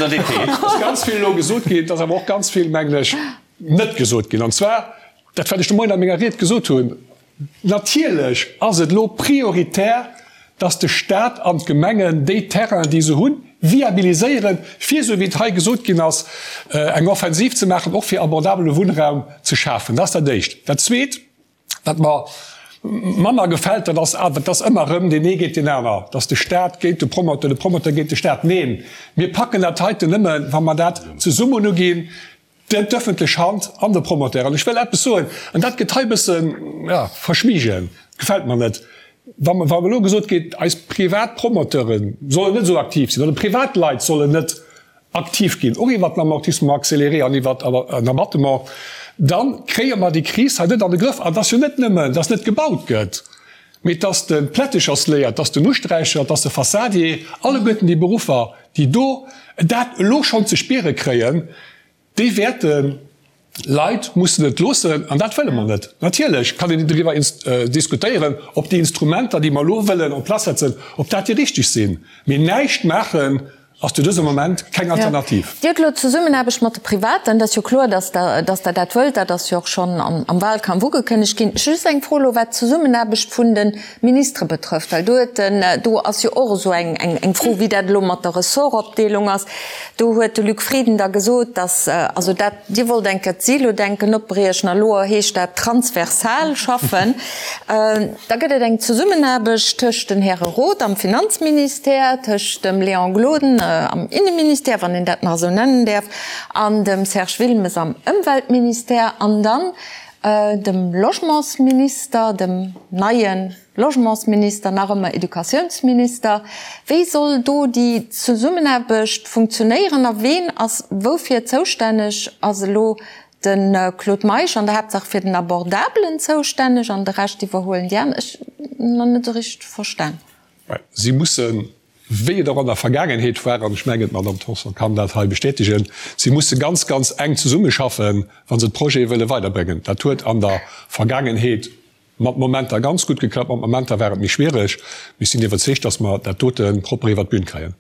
Dass ganz vill elo gesot ginn, dass awer och ganz vill, mengen ech, net gesot ginn. An zwar dat, wat ech de Moien a menger Ried gesot hunn, Natierlech ass et elo prioritär, dass de Stat an d'Gemengen déi Terrainen, déi se hunn, viabiliséieren, fir, esou wéi et hei gesot ginn ass, eng Offensiv ze maachen, och fir abordabele Wunnraum ze schafen. Dat ass dat Éischt. Dat Zweet, wat mer manner gefält, dat ass awer, dass ëmmer erëm deen ee géint deen aner, dass de Stat géint de Promoteur, de Promoteur géint de Stat. Neen, mir packen dat heiten nëmme, wa mer dat zesummen uginn, D'ëffentlech Hand an de Promoteur. An ech wëll eppes soen, an dat gëtt hei e bëssen, jo, verschwiegen, gefält mer net, wa elo gesot gétt, eis privat Promoteure sollen net esou aktiv sinn oder Privatleit sollen net aktiv ginn, och iwwert den Amortissement accéléré an iwwert en Abattement, da kréie mer déi Kris hei net an de Grëff. An et ass jo net nëmmen, dass net gebaut gëtt, mee dass de Plättechersléier, dass den Usträicher, dass de Fassadier, alleguerten déi Beruffer, déi do dat elo schonn ze spiere kréien, déi wäerte Leit mussen et loossen. An dat wëlle mer net. Natierlech kann een driwwer diskutéieren, ob déi Instrumenter, déi mer elo wëllen en place setzen, ob dat déi richteg sinn. Mee näischt maachen ass zu dësem Moment keng Alternativ. Dir hutt elo d'Zesummenaarbecht mat de Privaten, dat ass jo kloer, datt Der, datt Der dat wëllt, dat ass jo och schonn am Wahlkampf ugekënnegt ginn. Ech hu just eng Fro elo, wat d'Zesummenaarbecht vun de Ministere betrëfft, well do huet den, do ass jo och esou eng, eng Fro, wéi dat elo mat der Ressortopdeelung ass. Do huet de Luc Frieden da gesot, datt, also dat, Dir wollt eng Kéier d'Silo-Denken opbriechen a elo heescht dat transversal schaffen. Da gëtt et eng Zesummenaarbecht tëscht den Häre Roth am Finanzministère, tëscht dem Léon Gloden am Inneministère, wann een dat nach esou nennen däerf, an dem Serge Wilmes am Ëmweltministère an dann dem Logementsminister, dem neie Logementsminister, nach ëmmer Educatiounsminister. Wéi soll do déi Zesummenaarbecht funktionéieren a ween ass woufir zoustänneg? Ass elo de Claude Meisch an der Haaptsaach fir den Abordabelen zoustänneg an de Rescht iwwerhuelen déi aner? Ech hunn nach net esou richteg verstan. Si mussen wéi et och an der Vergaangenheet war, an ech mengen, d'Madame Tanson kann dat hei bestätegen, si musse ganz, ganz enk zesummeschaffen, wa se d'Projete wëlle weiderbréngen. Dat huet an der Vergaangenheet mat Momenter ganz gutt geklappt, mat Momenter war et méi schwierig. Mee ech sinn iwwerzeegt, dass mer dat dote propper iwwert d'Bün kréien.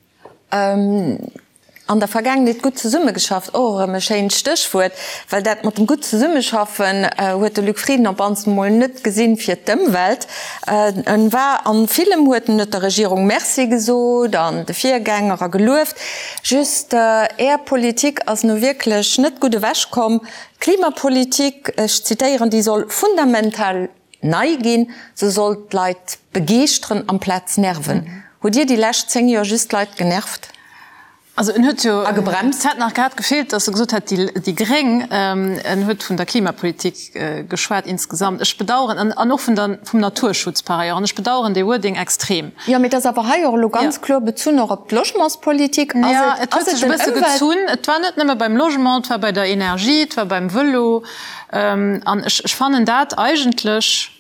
An der Vergaangenheet gutt zesummegeschafft, och erëm e schéint Stéchwuert, well dat mat dem gutt Zesummeschaffen huet de Luc Frieden op mannst emol net gesinn fir d'Ëmwelt. En war an villem huet en huet der Regierung Merci gesot an de Virgänger a gelueft. Just Är Politik ass nu wierklech net gutt ewech komm. D'Klimapolitik, ech zitéieren, déi soll fundamental nei ginn, se soll d'Leit begeeschteren amplaz nerven. Hutt Dir déi lescht 10 Joer just d'Leit genervt? Also en huet jo, a gebremst? Et hätt nach grad gefeelt, datt e gesot hätt, déi Gréng. En huet vun der Klimapolitik geschwat insgesamt. Ech bedauern, an, an och vun der, vum Naturschutz par ailleurs, an ech bedauern dee Wording extrem. Jo, mee et ass awer hei och elo ganz kloer bezunn och op d'Logementspolitik. Ass et, ass et den Ëmwelt. Gezunn. Et war net nëmme beim Logement, et war bei der Energie, et war beim Vëlo. An ech, ech fannen dat eigentlech,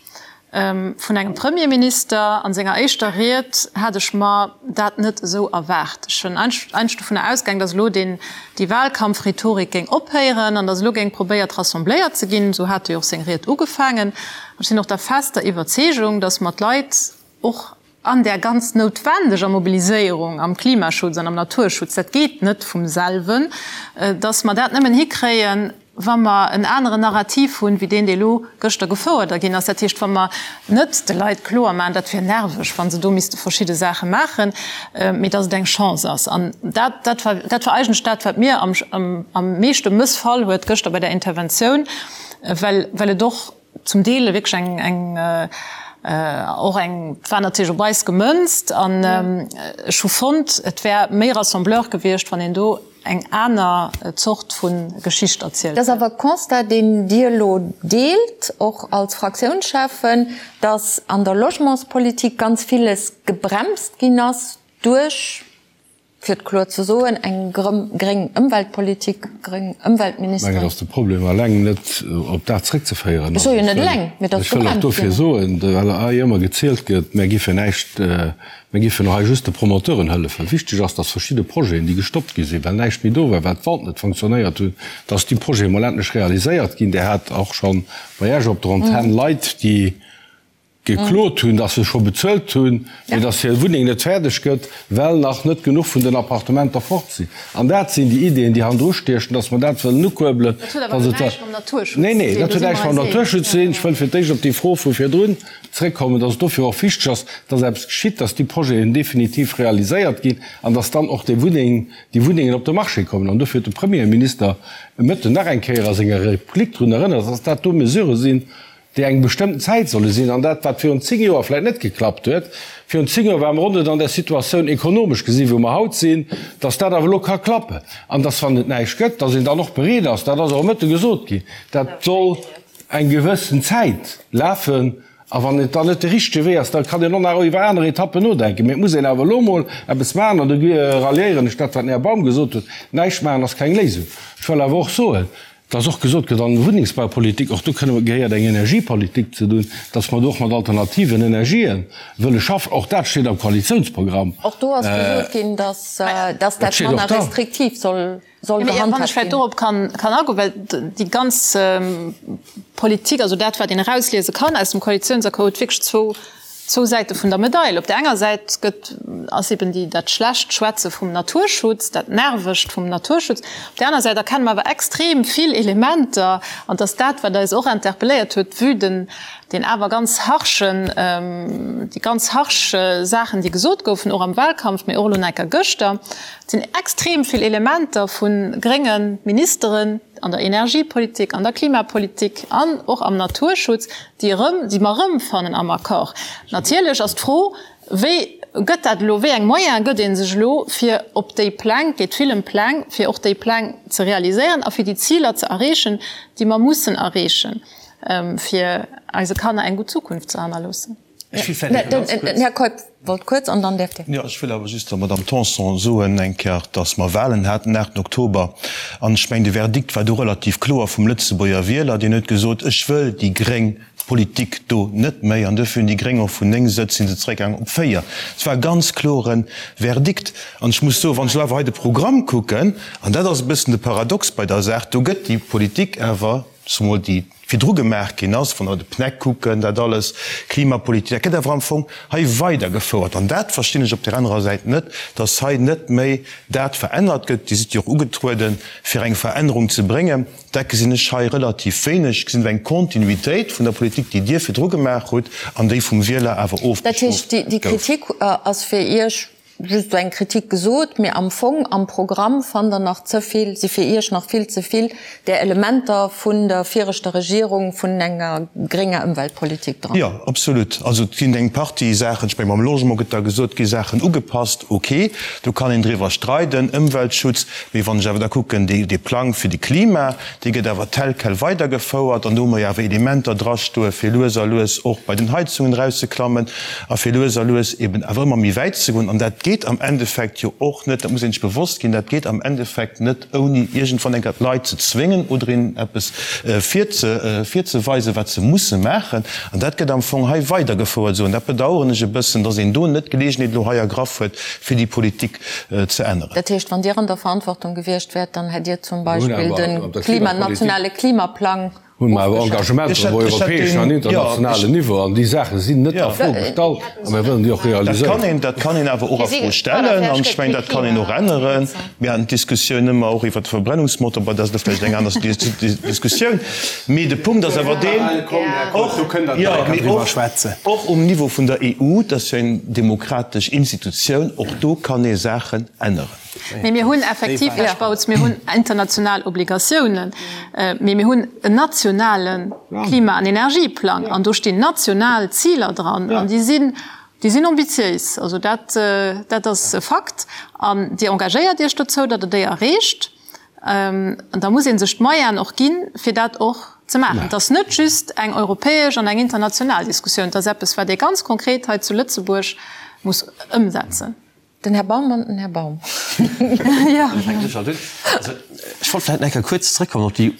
Vun engem Premierminister an senger éischter Ried hat ech mer dat net esou erwaart. Ech hunn eigentlech dovunner ausgaang, datt elo deen, déi Wahlkampfrhetorik géing ophéieren an datt elo géing probéiert rassembléiert ze ginn. Esou hat e jo och seng Ried ugefaangen. Ech sinn och der fester Iwwerzeegung, datt mer d'Leit och an där ganz noutwendeger Mobiliséierung am Klimaschutz an am Naturschutz, dat geet net vum selwen, datt mer dat nëmmen hikréien, wa mer en aneren Narrativ hunn, wéi deen, dee elo gëschter gefouert ginn ass. Dat heescht, wa mer net de Leit kloer maachen, dat wier nerveg, wa se do misste verschidde Saache maachen, mee datt et eng Chance ass. An dat, dat war, dat war eigentlech dat, wat mir am, am meeschte mëssfall huet gëschter bei där Interventioun, well, well et och, zum Deel wierklech eng, eng, och eng, et war natierlech op eis gemënzt an ech hu fonnt, et wär méi rassembleur gewiescht, wann een do eng aner Zort vu Geschicht erzielt hätt. Dat ass awer e Constat, deen Dir elo deelt, och als Fraktiounscheffen, datt an der Logementspolitik ganz villes gebremst ginn ass duerch. Fir et kloer ze soen, eng gréng Ëmweltpolitik, gréng Ëmweltministeren. Ech mengen, datt de Problem eleng net op dat zréckzeféieren ass. Ech soe jo net eleng, mee datt Ech wëll och dofir soen, well hei ëmmer gezielt gëtt, mär géifen näischt, mär géifen hei just de Promoteuren hëllefen. Wichteg ass, datt verschidde Projeten, déi gestoppt gi sinn, well näischt méi do war, well d'Vente net fonctionnéiert hunn, datt déi Projete mol endlech realiséiert ginn. Dir hat och scho bei Iech op der Antenn Leit, déi geklot hunn, dass se scho bezuelt hunn, mee dass hir Wunneng net fäerdeg gëtt, well nach net genuch vun den Appartementer fort sinn. An dat sinn déi Ideeën, déi hannendru stiechen, dass mer dat wëllen ukuerbelen. Dat huet awer elo näischt mam Naturschutz ze dinn. Nee, nee, dat huet näischt mam Naturschutz ze dinn. Ech wëll fir d'éischt op déi Fro vu virdrun zréckkommen, dass et dofir och wichteg ass, dass eppes geschitt, dass déi Projeten definitiv realiséiert ginn an dass dann och déi Wunneng, déi Wunnengen op de Marché kommen. An dofir huet de Premierminister e Mëtten nach eng Kéier a senger Replik drun erënnert, dass dat do Mesurë sinn, déi eng bestëmmten Zäit solle sinn, an dat, wat virun 10 Joer vläicht net geklappt huet, virun 10 Joer ware mer och net an där Situatioun ekonomesch gesinn, wou mer haut sinn, dass dat awer elo ka klappen an dass, wann et näischt gëtt, dass een dann och bereet ass, dat ass och e Mëtte gesot ginn, dat soll eng gewëssen Zäit lafen, a wann et dann net de richtege Wee ass, da kann een och nach iwwer aner Etappen nodenken. Mee et muss een awer elo emol eppes maachen, an do ralliéieren ech dat, wat den Här Baum gesot huet, Näischt maachen ass keng Léisung. Ech wëll awer och soen, Dass och gesot gëtt, an Wunnengsbaupolitik, och do kënne gehéiert eng Energiepolitik ze dun, dass mer do och mat alternativen Energië wëlle schaffen. Och dat steet am Koalitiounsprogramm. Och do ass gesot ginn, dass dat manner restriktiv soll gehandhaabt ginn. Wann ech vläicht dorop kann agoen, well déi ganz Politik, also dat, wat een erausliese kann aus dem Koalitiounsaccord, huet wierklech zwou Zwou Säite vun der Medail. Op där enger Säit gëtt, ass eben déi, dat schlecht Schwätze vum Naturschutz, dat Nervegt vum Naturschutz. Op där aner Säit erkenne mer awer extrem vill Elementer, an et ass dat, wat eis och interpelléiert huet, vue den, deen awer ganz harschen, déi ganz harsch Saachen, déi gesot goufen, och am Wahlkampf, mee och elo nach eng Kéier gëschter. Et sinn extrem vill Elementer vu grénge Ministeren an der Energiepolitik, an der Klimapolitik an och am Naturschutz, déi erëm, déi mer erëmfannen am Accord. Natierlech ass d'Fro, Wéi gëtt dat elo, wéi eng Moyene gëtt ee sech elo, fir op déi Pläng, et geet vill ëm Pläng, fir och déi Pläng ze realiséieren a fir déi Ziler ze erreechen, déi mer mussen erreechen, fir eise Kanner eng gutt Zukunft ze hannerloossen. Ech will vläicht ganz kuerz. Den Här Keup wollt kuerz an dann däerft Dir. Jo, ech wëll awer just der Madame Tanson soen eng Kéier, dass mer Wahlen haten den 8 Oktober. An ech mengen, de Verdikt war do relativ kloer vum Lëtzebuerger Wieler. Deen huet gesot, Ech wëll déi gréng Politik do net méi. An duerfir hunn déi Gréng och vun 9 Sëtz si se zeréckgaangen op 4. Et war e ganz klore Verdikt. An ech muss soen, wann ech elo awer hei de Programm kucken, an dat ass e bëssen de Paradox bei der Saach, do gëtt déi Politik awer, zemol déi virdru gemaach ginn ass, wann der de PNEC kucken, dat alles, Klimapolitik, dat gëtt awer am Fong hei weidergefouert. An dat verstinn ech op där anerer Säit net, dass hei net méi dat verännert gëtt. Dir sidd jo och ugetrueden, fir eng Verännerung ze bréngen. Dat gesinn ech hei relativ wéineg. Ech gesinn do eng Kontinuitéit vun der Politik, déi Dir virdru gemaach hutt an déi vum Wieler awer ofbestrooft gouf. Dat heescht, déi Kritik ass fir Iech Just esou eng Kritik gesot, mee am Fong am Programm fannt Der nach ze vill, si fir Iech nach vill ze vill där Elementer vun der viregter Regierung, vun enger grénger Ëmweltpolitik dran. Jo, absolut. Also et ginn eng Partie Saachen, ech menge mam Logement gëtt da gesot, gi Saachen ugepasst, ok, do kann een driwwer streiden, Ëmweltschutz, mee wann ech awer da kucken, dee Plang fir de Klima, Dee gëtt awer tel quel weidergefouert an do hu mer jo awer Elementer drastoe fir lues a lues och bei den Heizungen erauszeklammen a fir lues a lues eben awer ëmmer méi wäit ze goen. An dat geet am Endeffekt jo och net, dat muss een sech bewosst ginn, dat geet am Endeffekt net ouni iergendwann eng Kéier d'Leit ze zwéngen oder hinnen eppes virzeweisen, wat se musse maachen. An dat gëtt am Fong hei weidergefouert esou. An dat bedauern ech e bëssen, dass een do net d'Geleegenheet elo hei ergraff huet, fir déi Politik ze änneren. Dat heescht, wann Dir an der Verantwortung gewiescht wäert, dann hätt Dir zum Beispill de Klima, nationale Klimaplang Hunn mer awer Engagementer op europäeschem an internationalen Niveau, an déi Saache sinn net a Fro gestallt a mir wëllen déi och realiséieren. Dat kann een awer och a Fro stellen an ech mengen, dat kann een och änneren. Mir haten d'Diskussioun ëmmer och iwwert de Verbrennungsmotor, bon, dat ass elo vläicht eng aner Diskussioun, mee de Punkt ass awer deen, och, jo, mee och, och um Niveau vun der EU, dat ass jo eng demokratesch Institutioun, och do kann ee Saachen änneren. Mee mir hunn effektiv, Här Spautz, mir hunn international Obligatiounen, mee mir hunn en nationale Klima an Energieplang an do stinn national Ziler dran an déi sinn, Déi sinn ambitiéis, also dat, dat ass e Fakt. An Dir engagéiert Iech dozou, datt Der déi erreecht. An da muss ee sech d'Moyenen och ginn, fir dat och ze maachen. Et ass net just eng europäesch an eng international Diskussioun, et ass eppes, wat ee ganz konkret hei zu Lëtzebuerg muss ëmsetzen. Den Här Baum an den Här Baum. Ech wollt vläicht nach eng Kéier kuerz zrëckkommen op déi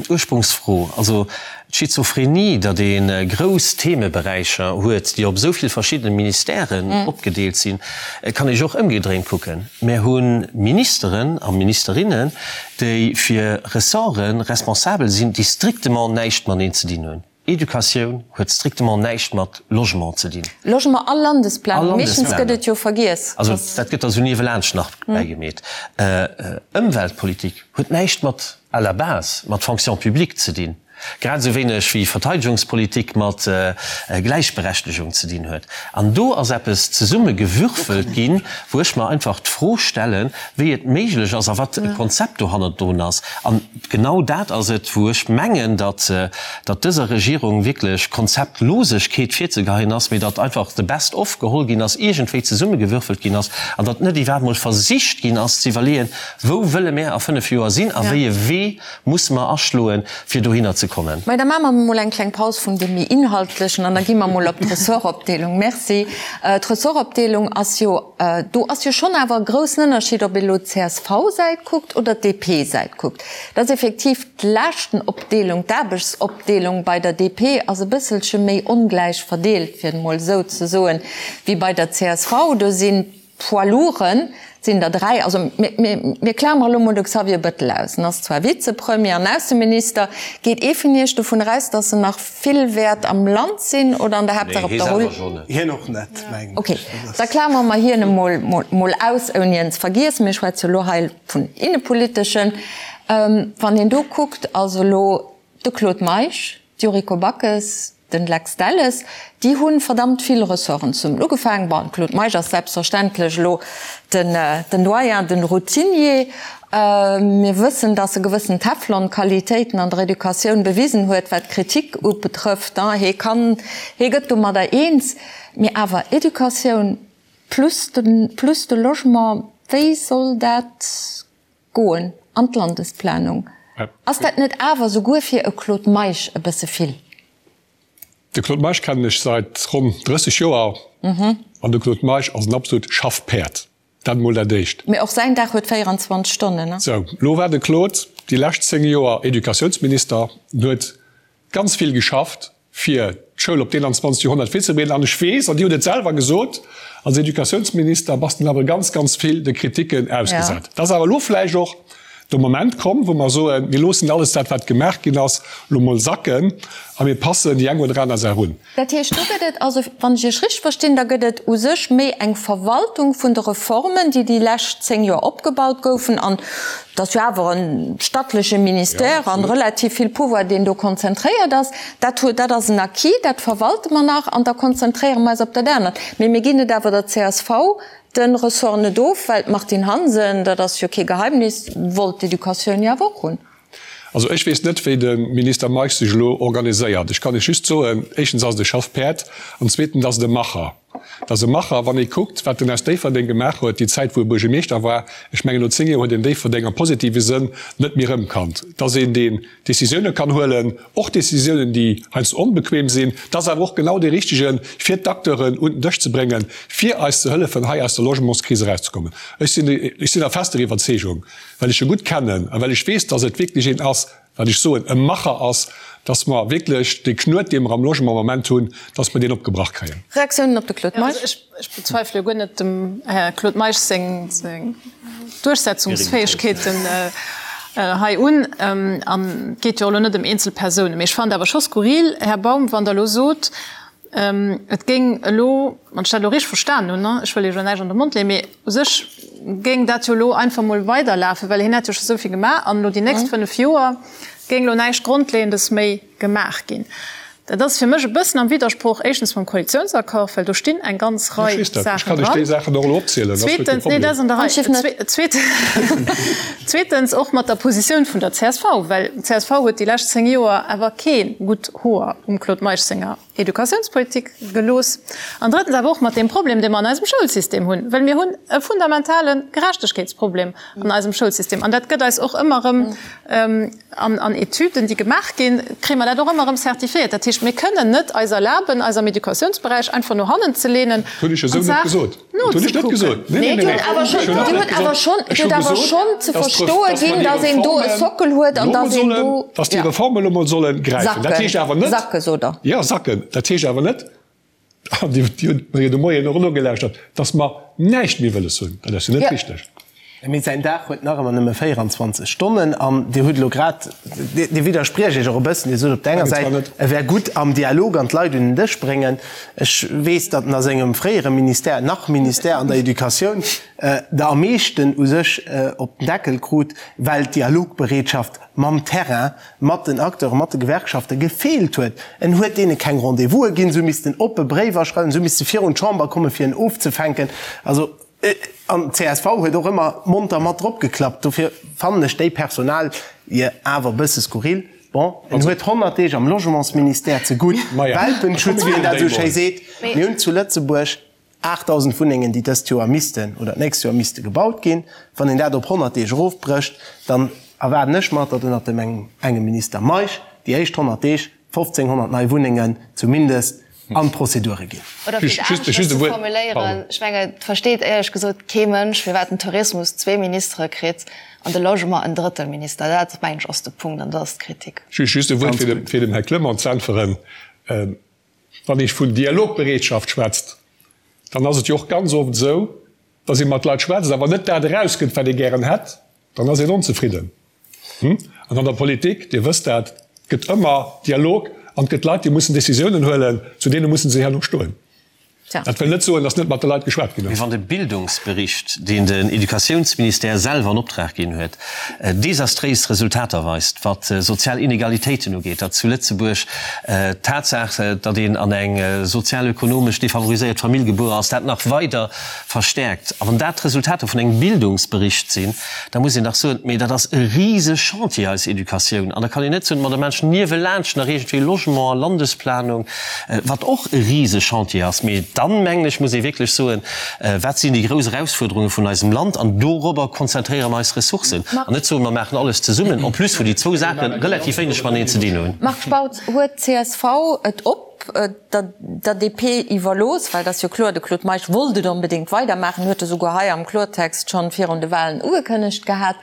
Ursprungsfro. Also d'Schizophrenie, datt ee grouss Themeberäicher huet, déi op esou vill verschiddene Ministèren opgedeelt sinn, kann ee jo och ëmgedréint kucken. Mär hu Ministeren a Ministerinnen, déi fir Ressorte responsabel sinn, déi strictement näischt mateneen ze dinn hunn. Educatioun huet strictement näischt mat Logement ze dinn. Logement a Landesplanung, meeschtens gëtt et jo vergiess. Also dat gëtt da sou niewelaanscht nach bäigemeet. Ëmweltpolitik huet näischt mat, à la base, mat Fonction publique ze dinn, grad esou wéineg wéi Verteidegungspolitik mat Gläichberechtegung ze dinn huet. An do ass eppes zesummegewürfelt ginn, wou ech mer einfach d'Fro stellen, wéi et méiglech ass a wat e Konzept dohannerdrun ass. An Genau dat ass et, wou ech mengen, datt datt dëser Regierung wierklech Konzeptlosegkeet virzegeheien ass, mee datt einfach the best of geholl ginn ass, iergendwéi zesummegewürfelt ginn ass an datt net iwwerhaapt emol versicht ginn ass ze iwwerleeën, Wou wëlle mär a fënnf Joer sinn a wéi e Wee musse mer aschloen, fir dohinner ze kommen? Mä da maache mer emol eng kleng Paus vun deem méi Inhaltlechen an da gi mer emol op d'Ressortopdeelung. Merci. D'Ressortopdeelung ass jo Do ass jo schonn awer e groussen Ënnerscheed, ob ee elo d'CSV-Säit kuckt oder d'DP-Säit kuckt. Dat ass effektiv d'Laaschtenopdeelung, d'Aarbechtsopdeelung bei der DP ass e bësselche méi ongläich verdeelt, fir et emol esou ze soen, wéi bei der csv. Do sinn d'Poids lourden, sinn der 3, also mir klamere elo mol de Xavier Bettel aus, en ass zwar Vizepremier an Ausseminister, geet ee vun Iech dovun eraus, datt en nach vill wäert am Land sinn oder an der Haaptsaach op der Rull? Hien och net, mengen ech. Ok, da klamere mer hien emol mol aus, ouni en ze vergiessen. Mir schwätze jo elo hei vun innepoliteschen. Wann een do kuckt, also elo de Claude Meisch, d'Yuriko Backes, Den Lex Delles, Déi hu verdammt vill Ressorten zesummen ugefaangen. Bon, de Claude Meisch ass selbstverständlech elo den den Doyen, den Routinier. Mir wëssen, datt e gewëssen Teflon-Qualitéiten an der Educatioun bewisen huet, wat d'Kritik ubetrëfft. Hee kann, hee gëtt domadder eens. Mee awer Educatioun plus de plus de Logement, wéi soll dat Goen an d'Landesplanung. Ass dat net awer souguer fir e Claude Meisch e bësse vill? De Claude Meisch kennen ech seit ronn 30 Joer an de Claude Meisch ass en absolut Schaffpäerd. Dat emol dat éischt. Mee och säin Dag huet 24 Stonnen, ne? Sou, lo war de Claude déi lescht 10 Joer Educatiounsminister an huet ganz vill geschafft fir d'Schoul op d'21. Joerhonnert virzebereeden. An ech weess, an Dir hutt et selwer gesot, als Educatiounsminister bass de awer ganz, ganz vill de Kriticken ausgesat. Et ass awer elo vläicht och de Moment komm, wou mer soen, mir loossen alles dat, wat gemaach ginn ass, elo mol sacken a mir passen déi eng oder aner Saach un. Dat heescht, do gëtt et also, wann ech Iech richteg verstinn, da gëtt et u sech méi eng Verwaltung vun de Reformen, déi déi lescht 10 Joer opgebaut goufen. An et ass jo awer e stattleche Ministère an relativ vill Pouvoir, deen do konzentréiert ass. Dat huet, dat ass en Acquis, dat verwalte mer nach an da konzentréiere mer eis op dat anert. Mee mir ginn et awer der csv de Ressort net of, well d'Martine Hansen, dat ass jo kee Geheimnis, wollt d'Educatioun jo awer och hunn. Also ech weess net, wéi de Minister Meisch sech elo organiséiert. Ech kann Iech just soen, éischtens ass et e Schaffpäerd an zweetens ass et e Macher. Et ass e Macher, wann ee kuckt, wat en aus Déifferdeng gemaach huet, déi Zäit, wou e Buergermeeschter war. Ech mengen, no 10 Joer huet een Déifferdeng am positive Sënn net méi erëmkannt. Et ass een, deen Décisioune kann huelen, och Décisiounen, déi heiansdo onbequem sinn. Et ass awer och genau dee Richtegen, fir d'Acteuren un den Dësch ze bréngen, fir eis ze hëllefen, hei aus der Logementskris erauszekommen. Ech sinn, ech sinn der fester Iwwerzeegung, well ech e gutt kennen a well ech weess, dass et wierklech een ass, wat ech soen, e Macher ass, dass mer wierklech dee Knuet, dee mer am Logement am Moment hunn, dass mer deen opgebrach kréien. Reaktiounen op de Claude Meisch? Also ech bezweifele jo guer net dem Här Claude Meisch seng Duerchsetzungsfäegkeeten hei un. An et geet jo och elo net ëm eenzel Persounen. Mee ech fannen et awer scho skurril, Här Baum, wann Der elo sot, Et géing elo, wann ech dat elo richteg verstanen hunn, ech wëll Iech elo näischt an de Mond leeën, mee u sech géing dat jo elo einfach mol weiderlafen, well hien hätt jo scho esou vill gemaach an elo déi nächst 5 Joer géing elo näischt Grondleeëndes méi gemaach ginn. Dat ass fir mech e bëssen am Widdersproch éischtens mam Koalitiounsaccord, well do stinn eng ganz Rei Saachen dran. Zweetens, nee, dat ass an der Rei. Zweetens och mat der Positioun vun der csv, well d'CSV huet déi lescht 10 Joer awer kee gutt Hoer um Claude Meisch senger Educatiounspolitik gelooss an drëttens awer och mat deem Problem, dee mer an eisem Schoulsystem hunn, well mir hunn e fundamentale Gerechtegkeetsproblem an eisem Schoulsystem an dat gëtt eis och ëmmer erëm an Etüden, déi gemaach ginn, kréie mer dat och ëmmer erëm certifiéiert. Dat heescht. heescht, mir kënnen net eis erlaben, eis am Educatiounsberäich einfach no hannen ze leenen an d'Saach nozekucken. Nee, Dir hutt awer schonn, Dir hutt awer schonn, Dir hutt awer schonn ze verstoe ginn, datt een do e Sockel huet an datt een do. Datt déi Reformen elo mol solle gräifen. Dat heescht awer net. Sacke, sot Der. Jo, sacken. Dat heescht awer net, an Dir hutt mer jo de Moien och nogelauschtert, datt mer näischt méi wëlles hunn. Dat ass jo net richteg. Mee säin Dag huet nach ëmmer nëmme 24 Stonnen. An Dir hutt elo grad, Dir widderspriecht Iech och e bëssen, Dir sot op der enger Säit, e wär gutt am Dialog an d'Leit un den Dësch bréngen. Ech weess, datt en a sengem fréiere Ministère, nach Ministère an der Educatioun, der am meeschten u sech op den Deckel krut, well d'Dialogbereetschaft mam Terrain, mat den Acteuren, mat de Gewerkschafte gefeelt huet. En huet deene keng Rendez-vouse ginn, se hu missten oppe Bréiwer schreiwen, se hu misste virun d'Chamber kommen, fir en ofzefänken. Also. An csv huet och ëmmer monter mat drop geklappt. Dofir fannen ech déi Personalie awer e bësse skurril. Bon, en huet 100 Deeg am Logementsministère ze gutt Welpenschutz, wéi en dat esou schéi seet. Mir hunn zu Lëtzebuerg 8.000 Wunnengen, déi dëst Joer missten oder d'nächst Joer misste gebaut ginn. Wann een dat op 100 Deeg erofbrécht, dann erwaarden ech mer, datt ënnert dem engem Minister Meisch déi éischt 100 Deeg 1.500 nei Wunnengen zumindest an d'Prozedure ginn. Oder fir et aneschters ze formuléieren, ech mengen, et versteet éierlech gesot kee Mënsch, firwat den Tourismus zwee Ministere kritt an de Logement en drëttel Minister. Dat, mengen ech, ass de Punkt an dat ass d'Kritik. Just e Wuert, fir dem Här Clement ze äntweren. Wann ee vun Dialogbereetschaft schwätzt, dann ass et jo och ganz oft esou, dass ee mat Leit schwätzt, awer net dat erauskënnt, wat ee gären hätt. Dann ass een onzefridden. An an der Politik, Dir wësst dat, gëtt ëmmer Dialog an et gëtt Leit, déi mussen Décisiounen huelen, zu deene musse se herno stoen. Dat wëll net soen, datt net mat de Leit geschwat ginn ass. Mee wann de Bildungsbericht, deen den Educatiounsministère selwer an Optrag ginn huet, desastréis Resultater weist, wat sozial Inegalitéiten ugeet, datt zu Lëtzebuerg d'Tatsaach, datt een an eng sozial-ökonomesch defavoriséiert Famill gebuer ass, dat nach weider verstärkt, a wann dat d'Resultater vun engem Bildungsbericht sinn, da muss een dach soen, mee dat ass e rise Chantier, eis Educatioun. An da kann een net soen, ma da maache niewelaanscht nach iergendwéi Logement a Landesplanung, wat och e rise Chantier ass. Mee dann, mengen ech, muss ee wierklech soen, wat sinn déi grouss Erausfuerderunge vun eisem Land an dorobber konzentréiere mer eis Ressourcen. An net soen, mer maachen alles zesummen, en plus wou déi zwou Saache relativ wéineg mateneen ze dinn hunn. Marc Spautz, Huet csv et op der DP iwwerlooss, well et ass jo kloer, de Claude Meisch wollt et onbedéngt weidermaachen, huet e souguer hei am Klortext schonn virun de Wahlen ugekënnegt gehat,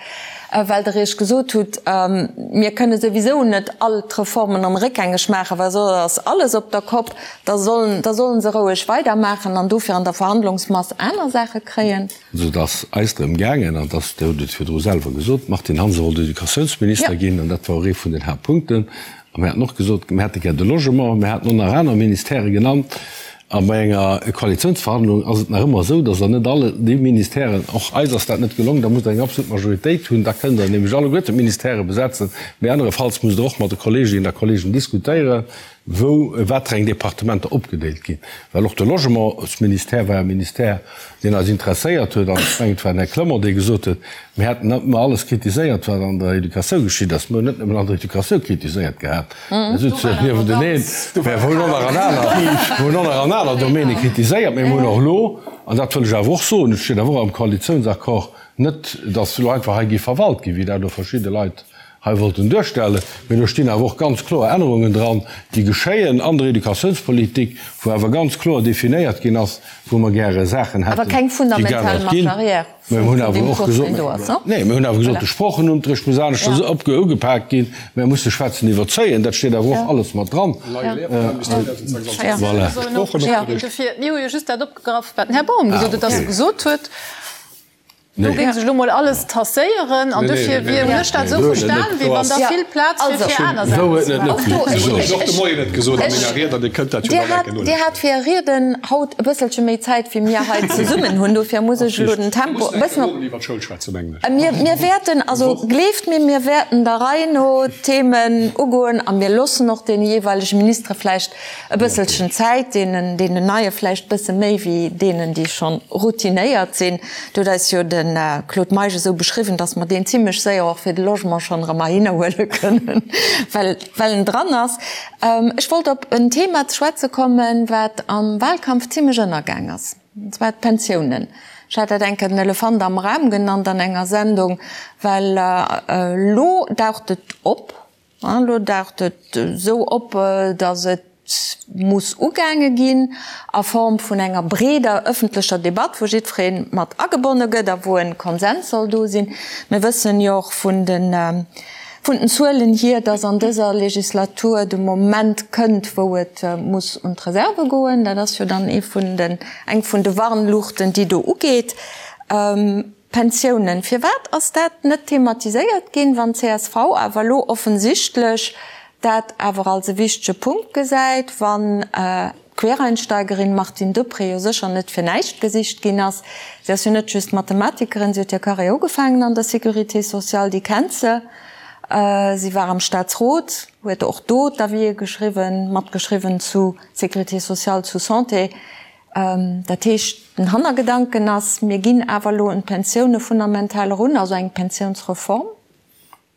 well Der Iech gesot hutt, mir kënne souwisou net all d'Reformen erëm réckgängeg maachen, well soss ass alles op der Kopp, da sollen, da sollen se roueg weidermaachen an dofir an der Verhandlungsmass aner Saache kréien. Also et ass eis drëm gaangen, an dass, Dir hutt et virdru selwer gesot, d'Martine Hansen wollt Educatiounsminister ginn, an dat war och ee vun den Haaptpunkten. A mir haten och gesot, mir hätte gär de Logement, mir haten och nach aner Ministèrë genannt. A bei enger Koalitionsverhandlung ass et nach ëmmer esou, dass Der net all déi Ministèren, och eis ass dat net gelong, da musst Der eng absolut Majoritéit hunn, da kënnt Der nämlech alleguerten d'Ministèrë besetzen, mee anerefalls musst Der och mat de Kolleeginnen a Kolleegen diskutéieren, wou wat fir eng Departementer opgedeelt ginn. Well och de Logementsministère war e Ministère, deen eis interesséiert huet. An ech mengen, et war den Här Clement, dee gesot huet, mir hätten net nëmme alles kritiséiert, wat an der Educatioun geschitt ass, mir hunn net nëmmen an der Educatioun kritiséiert gehat, mir souzen niewenteneen, mä mir hunn och nach an aner, mir hunn och nach an aner Domäne kritiséiert. Mä mir hunn och elo, an dat wëll ech awer och soen, et steet awer och am Koalitiounsaccord, net, datt elo einfach hei géif verwalt ginn, wéi dat elo verschidde Leit hei wollten duerstellen, mee do stinn awer och ganz kloer Ännerungen dran, déi geschéien an der Educatiounspolitik, wou awer ganz kloer definéiert ginn ass, wou mer gäre Saachen hätten, déi geännert ginn. Mä mir hunn awer och gesot, nee, mir hunn awer gesot, de Sproochenunterricht muss aneschters ugepaakt ginn, mir musse schwätzen iwwerzéien, dat steet awer och alles mat dran. Voilà. Mir hu jo just dat opgegraff, wat den Här Baum gesot huet, dass e gesot huet, Do géing sech elo mol alles tasséieren an dofir wier, hunn ech dat esou verstan, wéi wann da vill Plaz wier fir aner Saachen ze maachen. Dir hat fir Är Rieden haut e bësselche méi Zäit wéi mir hei zesummen hunn, dofir muss ech elo den Tempo e bëssen op. Mir wäerten, also gleeft mir, mir wäerten der Rei no d'Themen ugoen a mir loossen och deene jeeweilege Ministere vläicht E bësselchen Zäit, deenen, deenen Neie vläicht bësse méi wéi deenen, déi schonn routinéiert sinn. Et huet eis jo de Claude Meisch esou beschriwwen, datt mer deen zimlech séier och fir de Logement schonn erëm heihinner huele kënnen, well, well en dran ass. Ech wollt op en Thema ze schwätze kommen, wat am Wahlkampf zimlech ënnergaang ass, an zwar d'Pensiounen. Ech hat dat eng Kéier den Elefant am Raum genannt an enger Sendung, well elo daucht et op, Elo daucht et esou op, datt et. muss ugaange ginn a Form vun enger breeder ëffentlecher Debatt, wou jiddweree mat agebonne gëtt a wou e Konsens soll do sinn. Mir wëssen jo och vun den, vun den Zuelen hier, dass an dëser Legislatur de Moment kënnt, wou et muss un d'Reserve goen. Dat ass jo dann ee vun den, eng vun de Warnluuchten, déi do ugeet. Pensiounen, Firwat ass dat net thematiséiert ginn, wann csv awer elo offensichtlech dat awer als e wichtege Punkt gesäit, wann d'Quereinsteigerin Martine Deprez jo sécher net fir näischt gesicht ginn ass? Si ass jo net just Mathematikerin, si huet hir Carrière ugefaangen an der Sécurité sociale, déi kennt se. Si war am Staatsrot, huet och do d'Avisë geschriwwen, matgeschriwwen zu Sécurité sociale, zu Santé. Dat heescht, den Hannergedanken ass, mir ginn awer elo un d'Pensioune fundamental erun, also eng Pensiounsreform.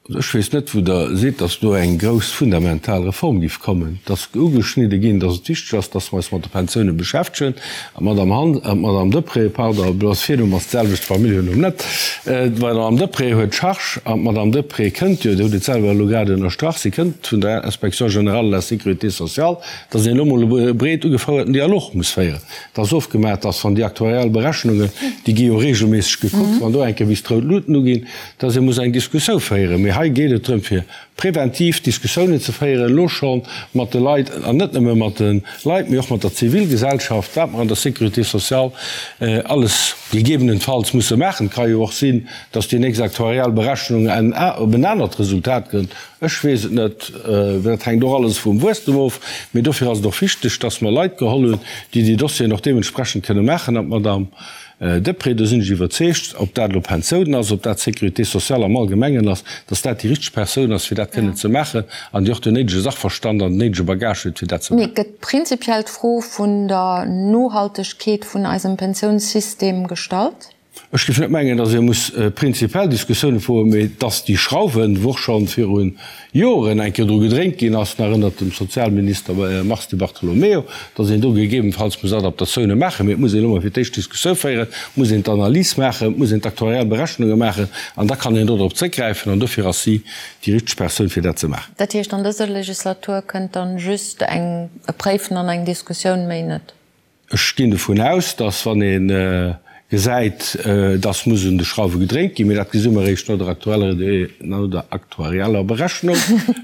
Also ech weess net, wou Der sidd, datt do eng grouss fundamental Reform géif kommen. Et ass ugeschnidde ginn, datt et wichteg ass, datt mer eis mat de Pensioune beschäftegen. An d'Madame Han, d'Madame Deprez, pardon, bloss Virnumm ass d'selwecht, Familljennumm net, d'Madame Deprez huet d'Charge an d'Madame Deprez kënnt jo, Dir hutt et selwer elo grad ënnerstrach, si kënnt vun der Inspection générale de la Sécurité sociale, dass een elo emol e breet ugefouerten Dialog muss féieren. Et ass ofgemaach, dass, wann déi aktuariell Berechnungen, déi gi jo regelméisseg gekuckt, wann do eng Kéier bis d'rout Luuten uginn, dass ee muss eng Diskussioun féieren. Mee hei geet et drëm, fir preventiv Diskussiounen ze féieren, elo scho mat de Leit, an net nëmme mat de Leit, mee och mat der Zivilgesellschaft, wat mer an der Sécurité sociale alles gegebenenfalls musse maachen. Et ka jo och sinn, dass déi nächst aktuariell Berechnung op en anert Resultat kënnt. Ech weess et net, dat hänkt och alles vum Wuesstem of. Mee dofir ass et och wichteg, dass mer Leit geholl hunn, déi déi Dossieren och deementsprechend kënne maachen. An d'Madame Deprez, do sinn ech iwwerzeegt, ob dat elo Pensiounen ass, ob dat d'Sécurité sociale am Allgemengen ass, dass dat déi richteg Persoun ass, fir dat kënnen ze maachen an déi och den néidege Sachverstand an den néidege Bagage huet, fir dat ze maachen. Mee gëtt prinzipiell d'Fro vun der Nohaltegkeet vun eisem Pensiounssystem gestallt? Ech géif net mengen, datt ee muss prinzipiell Diskussioune froen, mee datt déi Schrauwen, wou och scho viru Joren eng Kéier dru gedréint ginn ass, nach ënnert dem Sozialminister Mars Di Bartolomeo, datt een do gegebenfalls muss Adaptatioune maachen. Mee et muss een elo mol fir d'éischt Diskussioun féieren, et muss een d'Analys maachen, et muss een d'aktuariell Berechnunge maachen an da kann een do drop zréckgräifen an dofir ass si déi richteg Persoun, fir dat ze maachen. Dat heescht, an dëser Legislatur kënnt dann just eng e Préifen an eng Diskussioun, méi net? Ech ginn dovun aus, dass, wann ee gesäit, dass muss un de Schrauwe gedréint ginn, mee dat gesi mer eréischt no der aktueller, no der aktuarieller Berechnung,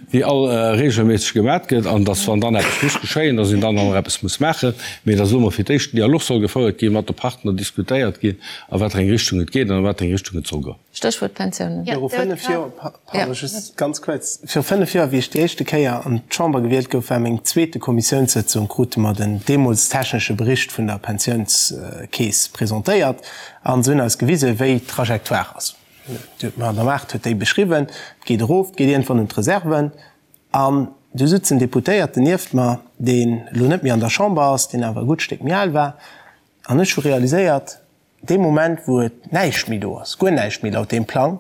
déi all regelméisseg gemat gëtt, an dass, wann dann eppes muss geschéien, dass een dann och nach eppes muss maachen, mee dass elo mol fir d'éischt den Dialog soll gefouert ginn, mat de Partner diskutéiert ginn, a wat fir eng Richtung et geet an a wat fir eng Richtung et soll goen. Stéchwuert Pensiounen. Viru 5 Joer, pardon, just ganz kuerz, viru 5 Joer, wéi ech déi éischte Kéier an d'Chamber gewielt gouf, war meng zweete Kommissiounssëtzung, krute mer den deemools technesche Bericht vun der Pensiounskeess presentéiert an se hunn eis gewisen, wéi d'Trajectoire ass. D'Madame Aart huet déi beschriwwen, et geet erof, et geet iergendwann un d'Reserven an du sutz en Deputéierten nieft mer, deen elo net méi an der Chamber ass, deen awer e gutt Stéck méi al war an ech hu realiséiert, Dee Moment, wou et näischt méi do ass, guer näischt méi laut deem Plang,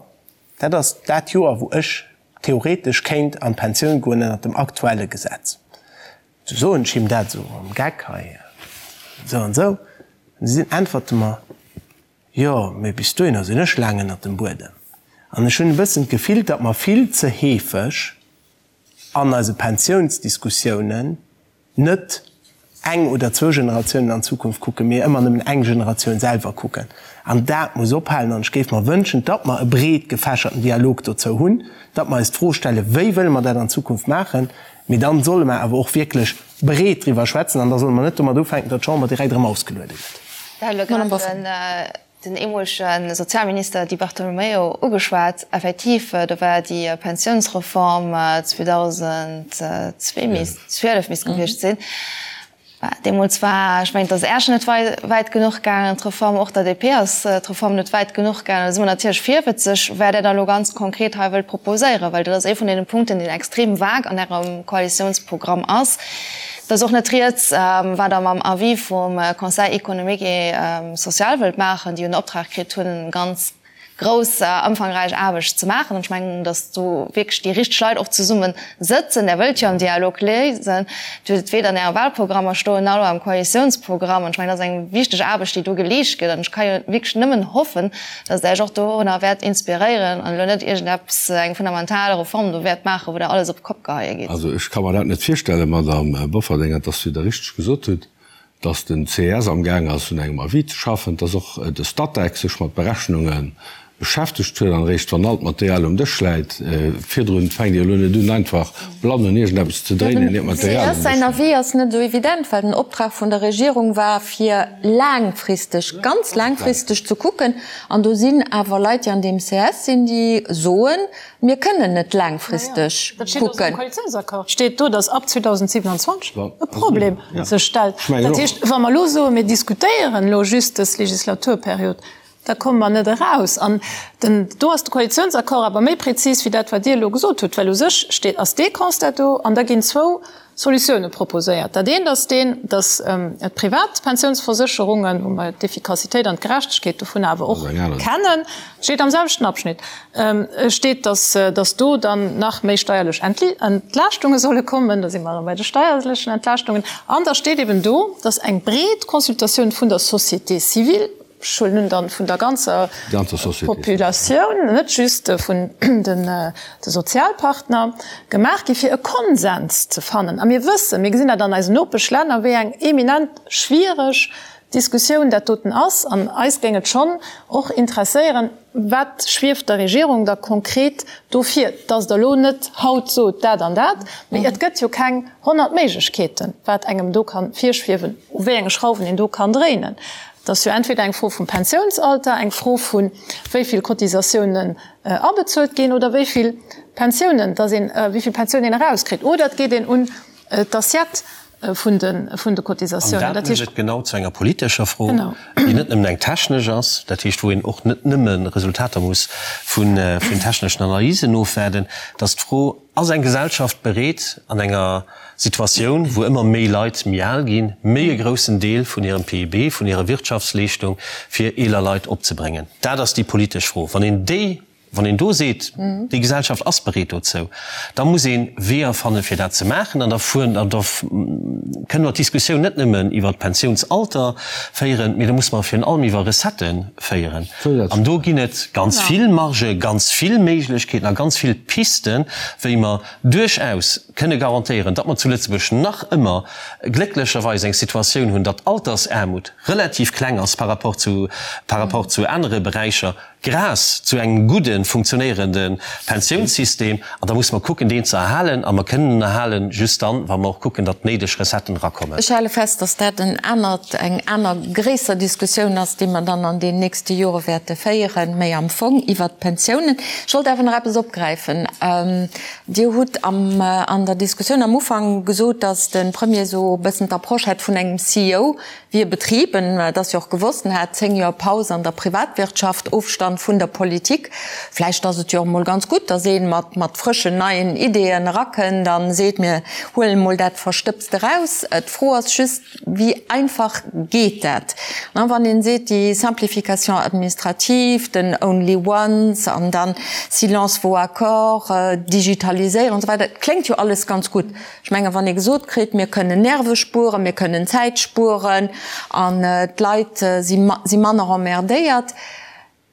dat ass dat Joer, wou ech theoretesch kéint an d'Pensioun goen ënnert dem aktuelle Gesetz. Du soen ech him dat esou am Geck hei, esou an esou, an du äntwert e mer, Jo, mee bis dohinner sinn ech laang ënnert dem Buedem. An ech hunn e bëssen d'Gefill, datt mer vill ze heefeg an eise Pensiounsdiskussiounen net eng oder zwou Generatiounen an d'Zukunft kucken, mee ëmmer nëmmen eng Generatioun selwer kucken. An dat muss ophalen. An ech géif mer wënschen, datt mer e breet gefächerten Dialog dozou hunn, datt mer eis d'Fro stellen, Wéi wëlle mer dat an Zukunft maachen? Mee dann solle mer awer och wierklech breet driwwer schwätzen an da solle mer net domat ufänken, datt d'Chamber direkt erëm ausgeluede gëtt. Den eemolege Sozialminister Di Bartolomeo ugeschwat. Effektiv, do war déi Pensiounsreform 2002 misst, 12 misst gewiescht sinn. Deemools war, ech mengen, et ass Äerch net wäit genuch gaangen, d'Reform, och der DP ass d'Reform net wäit genuch gaangen. Da si mer natierlech virwëtzeg, wat Der da elo ganz konkret hei wëllt proposéieren, well dat ass ee vun deene Punkten, deen extrem vague an Ärem Koalitiounsprogramm ass. Et ass och net rieds, wat Der mam Avis vum Conseil économique et social wëllt maachen, déi jo den Optrag kritt hunn, ganz. Grouss ëmfangräich Aarbecht ze maachen. An ech mengen, datt do wierklech déi richteg Leit och zesumme sëtzen. Der wëllt jo am Dialog léisen. Dir hutt et weder an Äre Wahlprogrammer stoen, nach elo am Koalitiounsprogramm. An ech mengen, dat ass eng wichteg Aarbecht, déi do geleescht gëtt. An ech ka jo wierklech nëmmen hoffen, datt Der Iech och dorunner wäert inspiréieren an elo net iergendeppes, eng fundamental Reform do wäert maachen, wou Der alles op d'Kopp geheie gitt. Also ech ka mer dat net virstellen, Madamm Bofferding, an dass, wéi Der richteg gesot hutt, dass den ces am Gaang ass un engem Avis ze schaffen, dass och de Statec sech mat Berechnunge beschäftegt huet an eréischt wann all d'Material um Dësch läit, virdrun fänkt Dir elo net un einfach blann un iergendeppes ze dréinen, ier d'Material um Dësch läit. Dem ces säin Avis ass net esou evident, well den Optrag vun der Regierung war fir laangfristeg, ganz laangfristeg ze kucken an do sinn awer Leit déi an deem ces sinn, déi soen, Mir kënnen net laangfristeg kucken. Dat steet och am Koalitiounsaccord, steet do, datt ab 2027 e Problem sech stellt. Dat heescht, wa mer elo soen, mir diskutéieren elo just dës Legislaturperiod, da komme mer net eraus. An den, do ass de Koalitiounsaccord awer méi prezis wéi dat, wat Dir elo gesot hutt, well u sech steet, ass dee Constat do an da ginn zwou Solutioune proposéiert. Dat eent ass deen, datt d'privat Pensiounsversécherungen, wou mer d'Effikassitéit an d'Gerechtegkeet dovun awer och kennen, steet am selwechten Abschnitt, steet, datt do dann nach méi steierlech Entlaaschtunge solle kommen, da si mer erëm bei de steierlechen Entlaaschtungen, an da steet eben do, datt eng breet Consultatioun vun der Société civile, Ech huelen un, dann vun der ganzer Populatioun, net just vun de Sozialpartner, gemaach gi fir e Konsens ze fannen. A mir wëssen, mir gesinn dat an eisen Nopeschlänner, wéi eng eminent schwiereg Diskussioun dat doten ass. An eis géing et schonn och interesséieren, Wat schwieft der Regierung da konkret do vir? Dass Der elo net haut sot, dat an dat, mee et gëtt jo keng 100 Méiglechkeeten, wat engem do ka virschwiewen, u wéi enge Schrauwen een do kann dréinen. Et ass jo entweder eng Fro vum Pensiounsalter, eng Fro vu wéi vill Cotisatiounen abezuelt ginn oder wéi vill Pensiounen, dass een, wéi vill Pensioun een erauskritt, oder et geet een un d'Assiette vun de, vun de Cotisatiounen. An dat mécht et genau zu enger politescher Fro, déi net nëmmen eng technesch ass, dat heescht wou een och net nëmme Resultater muss vun, vun techneschen Analysen ofwaarden, dass d'Fro, Ass eng Gesellschaft bereet, an enger Situatioun, wou ëmmer méi Leit méi al ginn, méi e groussen Deel vun hirem PIB, vun hirer Wirtschaftsleeschtung fir eeler Leit opzebréngen? Dat ass déi politesch Fro. Wann een déi, wann een do seet, déi Gesellschaft ass bereet dozou, da muss ee Weeër fannen, fir dat ze maachen. An da fueren, an da kënne mer d'Diskussioun net nëmmen iwwert d'Pensiounsalter féieren, mee da musse mer virun allem iwwer Recettë féieren. An do ginn et ganz vill Margen, ganz vill Méiglechkeeten a ganz vill Pisten, wéi mer duerchaus kënne garantéieren, datt mer zu Lëtzebuerg nach ëmmer glécklecherweis eng Situatioun hunn, datt d'Altersaarmut relativ kleng ass par rapport zu, par rapport zu anere Beräicher, grâce zu engem gudden, funktionéierende Pensiounssystem. An da musse mer kucken, deen ze erhalen. A mer kënnen en erhalen just dann, wa mer och kucken, datt d'néideg Recetten erakommen. Ech hale fest, datt dat en anert, eng aner gréisser Diskussioun ass, déi mer dann an den nächste Jore wäerte féieren, méi am Fong iwwert d'Pensiounen. Ech wollt awer nach eppes opgräifen. Dir hutt am, an der Diskussioun am Ufank gesot, datt de Premier esou e bëssen d'Approche hätt vun engem CEO, Wéi e Betrib, en et ass jo och gewosst, en hat 10 Joer Paus an der Privatwirtschaft, Ofstand vun der Politik. Vläicht ass et jo och emol ganz gutt, datt ee mat mat frëschen, neien Ideeën erakënnt a seet, mir huelen emol dat Verstëbst eraus. D'Fro ass just, wéi einfach geet dat? Wann een seet, déi Simplification administrative, den only once an dann silence vaut accord, Digitaliséierung an esou weider, et kléngt jo alles ganz gutt. Ech mengen, wann ee gesot kritt, mir kënnen Nerve spueren, mir kënnen Zäit spueren an d'Leit si manner emmerdéiert,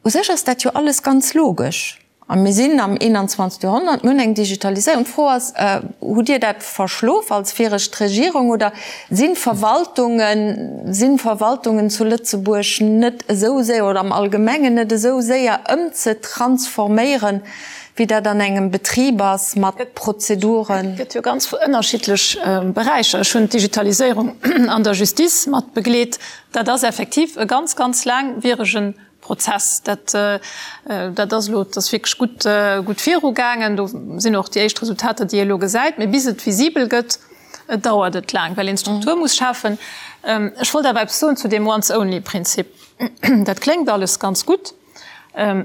u sech ass dat jo alles ganz logesch. A mir sinn am 21. Joerhonnert, mir hunn eng Digitaliséierung. D'Fro ass, Hutt Dir dat verschlof als viregt Regierung oder sinn d'Verwaltungen, sinn d'Verwaltungen zu Lëtzebuerg net esou séier oder am Allgemengen net esou séier ëmzetransforméieren, wéi dat an engem Betrib ass mat Prozeduren. Et gëtt jo ganz ënnerschiddlech Beräicher. Ech hunn d'Digitaliséierung an der Justice mat begleet. Dat ass effektiv e ganz, ganz laangwierege Prozess. Dat, dat ass elo, dat ass wierklech gutt, gutt virugaangen. Do sinn och déi éischt Resultater, déi ee elo gesäit. Mee bis et visibel gëtt, dauert et laang, well een d'Struktur muss schafen. Ech wollt awer eppes soen zu deem Once-only-Prinzip. Dat kléngt alles ganz gutt.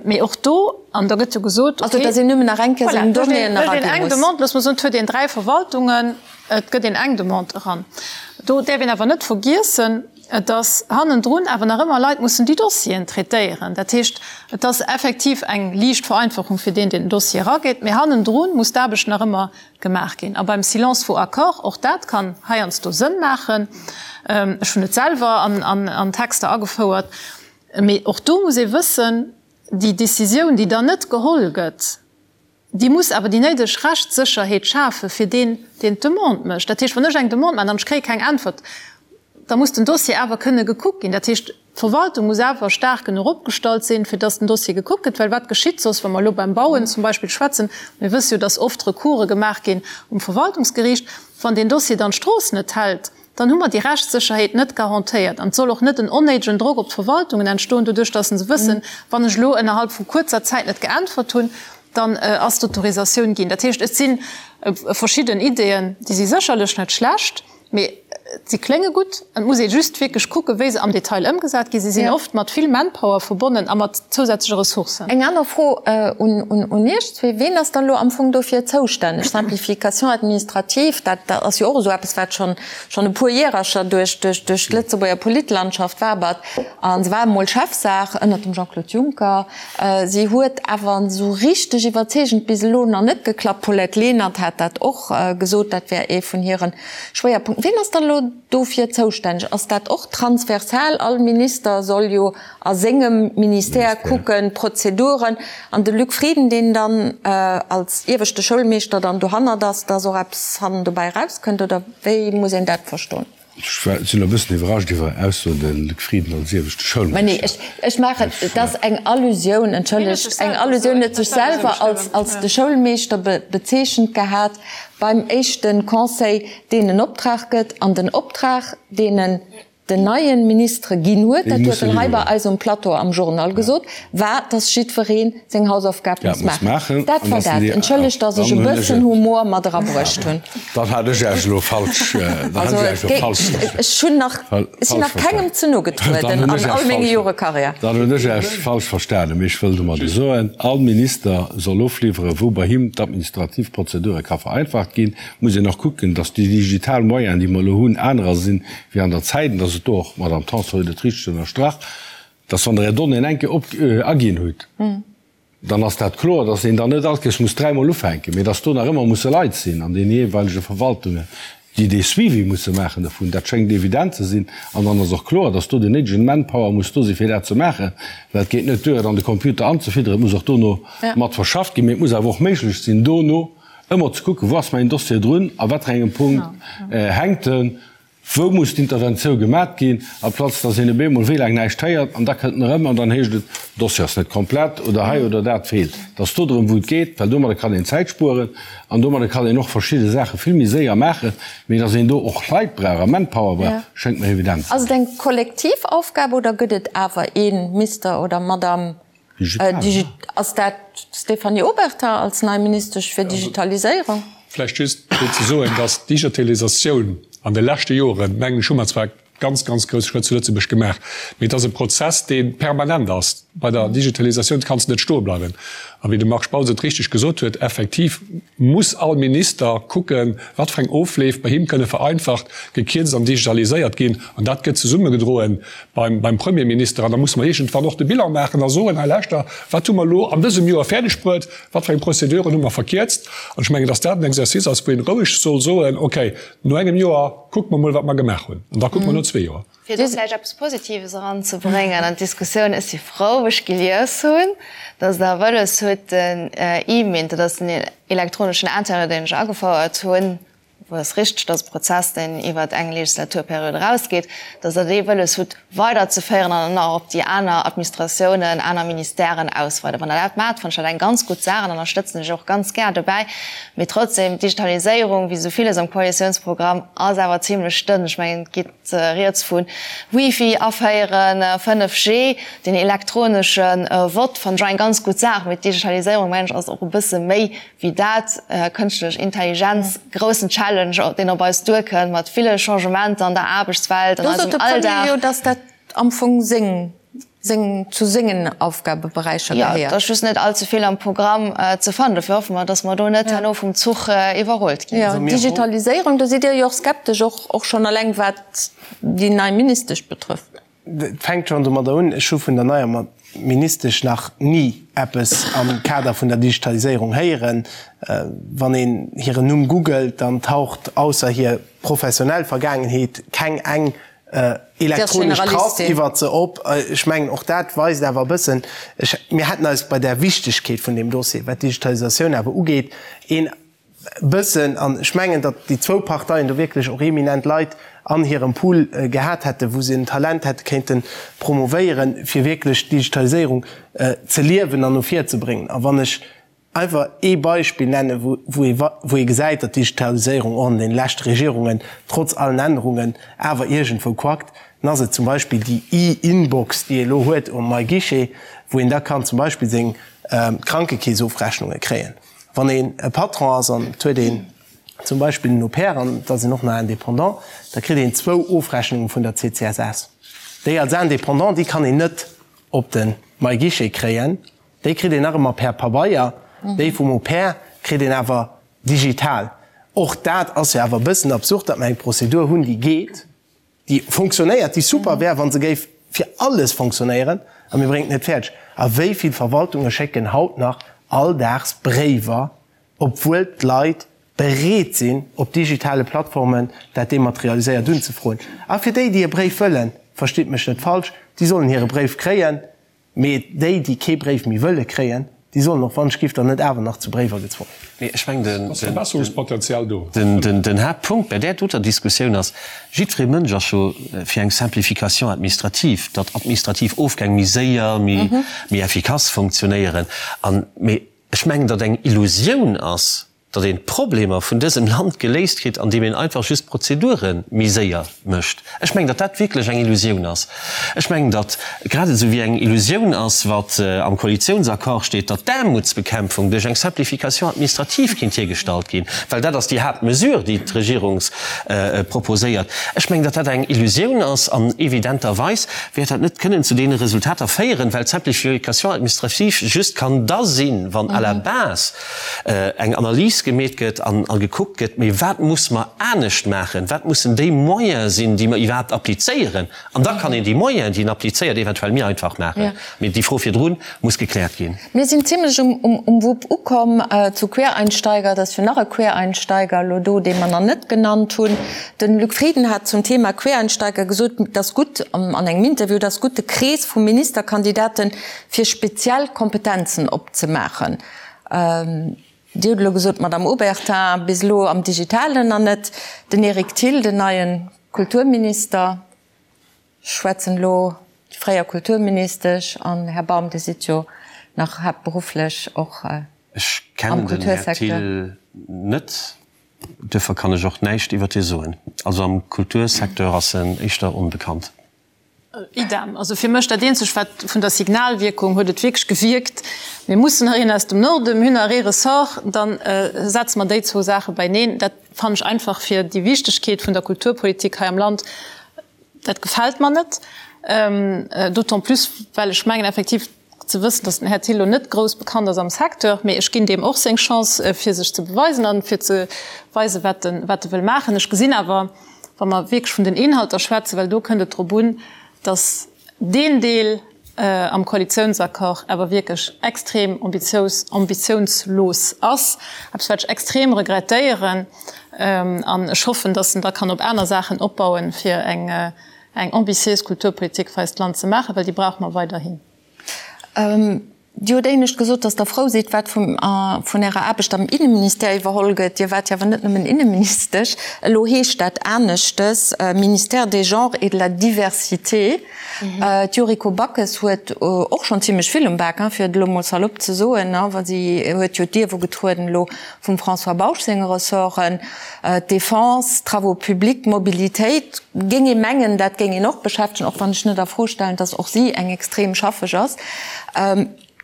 Mee och do, an da gëtt jo gesot, okay. Also, datt een nëmmen nach eng Kéier seng Donnéeën eraginn muss. Voilà, eng Demande, loosse mer soen, et huet een 3 Verwaltungen, et gëtt een eng Demande eran. Do däerf een awer net vergiessen. Dass hannendrun awer nach ëmmer Leit mussen déi Dossieren traitéieren. Dat heescht, et ass effektiv eng liicht Vereinfachung fir deen, deen den Dossier erageet, mee hannendru muss d'Aarbecht nach ëmmer gemaach ginn. A beim Silence vaut accord, och dat kann heiansdo Sënn maachen, ech hunn et selwer an Texter agefouert, mee och do muss ee wëssen, déi Décisioun, déi dann net geholl gëtt, Déi muss awer déi néideg Rechtssécherheet schafe fir deen, deen d'Demande mécht. Dat heescht, wann ech eng Demande maachen an ech kréie keng Äntwert, da muss den Dossier awer kënne gekuckt ginn. Dat heescht, d'Verwaltung muss awer staark genuch opgestallt sinn, fir dass den Dossier gekuckt gëtt. Well wat geschitt soss, wa mer elo beim Bauen zum Beispill schwätzen, mir wësse jo, dass oft Recourse gemaach ginn um Verwaltungsgeriicht, wann deen Dossier dann d'Strooss net hält, dann hu mer déi Rechtssécherheet net garantéiert. An et soll och net en onnéidegen Drock op d'Verwaltungen entstoen, doduerch dass se wëssen, wann ech elo ënnerhalb vu kuerzer Zäit net geäntwert hunn, dann ass d'Autorisatioun ginn. Dat heescht, et si verschidden Ideeën, déi si sécherlech net schlecht, mee si klénge gutt. Et muss ee just wierklech kucken, wéi se am Detail ëmgesat ginn. Si sinn oft mat vill Manpower verbonnen a mat zousätzleche Ressourcen. Eng aner Fro un Iech zwee, Ween ass dann elo am Fong dofir zoustänneg? Simplification administrative, dat ass jo och esou eppes, wat schonn schonn e puer Järercher duerch duerch d'Lëtzebuerger Politlandschaft wabert. A se war emol Chefsaach ënnert dem Jean-Claude Juncker. Si huet awer esou richteg iwwerzeegend bis elo nach net geklappt. D'Paulette Lenert hat dat och gesot, dat wär ee vun hire Schwéierpunkten. Ween ass dann elo dofir zoustänneg? Ass dat och transversal? All Minister soll jo a sengem Ministère kucken, d'Prozeduren, an de Luc Frieden, deen dann als ieweschte Schoulmeeschter dann dohannert ass, dass och eppes hannen dobäi erauskënnt, oder wéi muss een dat verstoen? Ech sinn e bëssen iwwerrascht iwwer Är Ausso, de Luc Frieden als ieweschte Schoulmeeschter. Nee, ech maachen, et ass eng Allusioun, entschëllegt, eng Allusioun, huet sech selwer als de Schoulmeeschter bezeechent gehat beim éischte Conseil, deen en Optrag gëtt, an den Optrag, deen en den neien Ministere ginn huet, dat huet en hei bei eis um Plateau am Journal gesot, war, dass jiddweree seng Hausaufgab muss maachen. Dat war dat. Entschëllegt, dass ech e bëssen Humor mat erabruecht hunn. Dann hat ech Iech elo falsch, dann hat ech Iech elo falsch verstanen. Ech hunn nach, ech sinn nach kengem ze no getrueden an all menge Jore Karriär. Dann hunn ech Iech falsch verstanen. Mee ech wëll domadder soen, all Minister soll ofliwweren, wou bei him d'administrativ Prozedure ka vereinfacht ginn. Muss een och kucken, dass déi digital Moyenen, déi mer elo hunn, anerer sinn, wéi an der Zäit, an dass et do och, d'Madame Tanson huet et richteg ënnerstrach, dass wann Der Är Donnéeën eng Kéier op aginn hutt, dann ass dat kloer, dass een dann net all Kéiers muss dräimol ufänken, mee dass do nach ëmmer musse Leit sinn an deene jeeweilege Verwaltungen, déi dee Suivi musse maachen dovun. Dat schéngt evident ze sinn. An dann ass och kloer, dass do den néidegen Manpower muss do sinn, fir dat ze maachen, well et geet net duer, et an de Computer anzefidderen, et muss och dono mat verschafft ginn, mee et muss awer och méiglech sinn, dono ëmmer ze kucken, wou ass mäin Dossier drun, a wat fir engem Punkt hänkt en, wou muss d'Interventioun gemat ginn, amplaz datt een op eemol wéi laang näischt héiert an da kënnt en erëm an dann heescht et, den Dossier ass net komplett oder hei oder dat feelt. Et ass do drëm, wou et geet, well domadder kann een Zäit spueren an domadder kann een och verschidde Saache vill méi séier maachen, mee datt een do och Leit brauch a Manpower brauch, schéngt mer evident ze Ass et sinn. eng kollektiv Aufgab oder gëtt et awer ee Mister oder Madame Ass dat d'Stéphanie Obertin als nei Ministesch fir Digitaliséierung? Vläicht just fir ze soen, dass d'Digitalisatioun an de leschte Joren, mengen ech, hu mer zwar ganz, ganz grouss Schrëtt zu Lëtzebuerg gemaach, mee et ass e Prozess, dee permanent ass. Bei der Digitalisatioun kanns de net stoe bleiwen. A wéi de Marc Spautz et richteg gesot huet, effektiv muss all Minister kucken, wat fir eng Ofleef bei him kënne vereinfacht, gekierzt an digitaliséiert ginn. An dat gëtt zesummegedroen beim Premierminister an da musse mer iergendwann och de Bilan maachen a soen, hei lauschter, wat hu mer elo an dësem Joer fäerdeg bruet, wat fir eng Prozeduren hu mer verkierzt? An ech mengen, dass dat en Exercice ass, wou een roueg soll soen, okay, no engem Joer kucke mer mol, wat mer gemaach hunn, an da kucke mer no zwee Joer. Fir do vläicht eppes Positives eranzebréngen an d'Diskussioun, Ech si frou, wou ech gelies hunn, dass Der wëlles hutt, den E-Mint, dat ass den elektroneschen Internet, deen ech agefouert hunn, wou ass richteg, dass e Prozess, deen iwwert eng Legislaturperiod erausgeet, dass Der dee wëlles hutt weiderzeféieren an dann och op déi aner Administratiounen, aner Ministèren ausweiden. Wann Der dat maacht, fannen ech dat eng ganz gutt Saach an ënnerstëtzen ech och ganz gär dobäi. Mee trotzdem, d'Digitaliséierung, wéi esou villes am Koalitiounsprogramm, ass awer zimlech dënn. Ech mengen, et geet rieds vu Wifi aféieren, 5G, den elektronesche Vott, fannen ech och eng ganz gutt Saach. Mee d'Digitaliséierung, mengen ech, ass och e bësse méi wéi dat, kënschtlech Intelligenz, groussen Challenge, deen op eis duerkënnt, mat ville Changementer an der Aarbechtswelt, an eisem Alldag. Do sot de Premier jo, datt dat am Fong seng. Seng, zu sengen Aufgabeberäicher gehéiert. Jo, et ass just net all ze vill am Programm ze fannen. Dofir hoffe mer, dass mer do net herno vum Zuch iwwerrullt ginn. Jo, Digitaliséierung, do sidd Dir jo och skeptesch, och, och schonn eleng wat déi nei Ministesch betrëfft. Et fänkt schonn domadder un, ech hu vun der neier Ministesch nach ni eppes am Kader vun der Digitaliséierung héieren. Wann een hiren Numm googelt, dann taucht ausser hir professionell Vergaangenheet keng eng elektronesch Trass iwwert se op. Ech mengen, och dat weist awer e bëssen, ech, mir hätten eis bei där Wichtigkeet vun deem Dossier, wat d'Digitalisatioun awer ugeet, een bëssen, an ech mengen, datt déi zwou Parteien do wierklech och eminent Leit an hirem Pool gehat hätten, wou se en Talent hätte kéinte promovéieren, fir wierklech d'Digitaliséierung ze liewen an no vir ze bréngen. A wann ech Einfach ee Beispill nennen, wou ee gesäit, datt d'Digitaliséierung och an deene leschte Regierungen, trotz allen Ännerungen, awer iergendwou quackt, dann ass et zum Beispill déi E-Inbox, déi ee elo huet um MyGuichet, wou een da kann zum Beispill seng Krankekeesofrechnunge kréien. Wann een e Patron ass an et huet een zum Beispill en Au-pair an et ass een och nach Indépendant, da kritt een zwou Ofrechnunge vun der CCSS. Déi als Indépendant, déi kann een net op de MyGuichet kréien. Déi kritt een nach ëmmer per Pabeier, déi vum Au pair kritt een awer digital. Och dat ass jo awer e bëssen absurd, datt mer eng Prozedur hunn, déi geet, déi fonctionnéiert, déi super wär, wa se géif fir alles fonctionnéieren, a mir bréngen et net fäerdeg. A wéi vill Verwaltunge schécken haut nach alldaags Bréiwer, obwuel d'Leit bereet sinn, op digitale Plattformen dat dematerialiséiert unzefroen? A fir déi, déi e Bréif wëllen, verstitt mech net falsch, déi sollen hire Bréif kréien. Mee déi, déi kee Bréif méi wëlle kréien, déi sollen och wann ech giff dann net awer nach zu Bréiwer gezwongen ginn. Mee ech mengen, den, Ass Verbesserungspotenzial do? den, den Haaptpunkt bei där doter Diskussioun ass, jiddweree Mënsch ass jo fir eng Simplification administrative, datt administrativ Ofgäng méi séier, méi, méi effikass funktionéieren. An, mee ech mengen, datt eng Illusioun ass, datt een d'Problemer vun dësem Land geléist kritt, andeem een einfach just d'Prozedure méi séier mécht. Ech mengen, datt dat wierklech eng Illusioun ass. Ech mengen, datt grad esou wéi eng Illusioun ass, wat am Koalitiounsaccord steet, datt d'Aarmutsbekämpfung duerch eng Simplification administrative kéint hiergestallt ginn, well dat ass déi Haaptmesure, déi d'Regierung proposéiert. Ech mengen, datt dat eng Illusioun ass an evidenterweis wäert dat net kënnen zu deene Resultater féieren, well d'Simplification administrative just kann da sinn, wann à la base eng Analys gemeet gëtt an gekuckt gëtt, mee wat muss mer anescht maachen, wat mussen déi Moyene sinn, déi mer iwwerhaapt applizéieren, an da kann een déi Moyenen, déi een applizéiert, eventuell méi einfach maachen. Mee déi Fro virdru muss gekläert ginn. Mir sinn zimlech um Wupp ukomm. Zu Quereinsteiger, et ass jo nach e Quereinsteiger elo do, dee mer nach net genannt hunn. De Luc Frieden hat zum Thema Quereinsteiger gesot, et ass gutt, an engem Interview, et ass gutt, de Krees vu Ministerkandidaten fir speziell Kompetenzen opzemaachen. Dir hutt elo gesot, d'Madame Obertin, bis elo am Digitalen nach net. Den Eric Thill, den neie Kulturminister, ech schwätzen elo déi fréier Kulturministesch, an Här Baum, Dir sidd jo nach haaptberufflech och am Kultursecteur. Ech kennen den Här Thill net, duerfir kann ech och näischt iwwert hie soen. Also am Kultursecteur ass en éischter onbekannt. Idem. Also fir mech dat eenzegt wat vun der Signalwierkung huet et wierklech gewierkt, mir mussen nach een aus dem Norden, mir hunn nach ee Ressort, dann setze mer déi zwou Saache beineen. Dat fannen ech einfach fir déi Wichtegkeet vun der Kulturpolitik hei am Land, dat gefält mer net. D'autant plus well ech mengen effektiv ze wëssen, datt den Här Thill lo net grouss bekannt ass am Secteur, mee ech ginn deem och seng Chance fir sech ze beweisen an fir ze weisen, wat en wat e wëll maachen. Ech gesinn awer, wa mer wierklech vun den Inhalter schwätzen, well do kënnt et drop un, datt deen Deel am Koalitiounsaccord awer wierklech extrem ambitious ambitiounslos ass, eppes wat ech extrem regrettéieren an ech hoffen, datt en da kann op aner Saachen opbauen, fir eng eng ambitiéis Kulturpolitik fir eist Land ze maachen, well déi brauche mer weiderhin. Dir hutt éinescht gesot, datt Der frou sidd, wat vun Ärer Aarbecht am Inneministère iwwerholl gëtt. Dir waart jo awer net nëmmen Inneministesch. Elo heescht dat aneschtes, Ministère des Genres et de la Diversité. D'Yuriko Backes huet och schonn zimlech vill um Bak, fir et elo mol salopp ze soen, wa si huet jo d'Ierf ugetrueden elo vum François Bausch senge Ressorten. D'Defense, d'Travaux publics, d'Mobilitéit, géing ee mengen, dat géing een och beschäftegen, och wann ech net a Fro stellen, datt och si eng extrem schaffeg ass.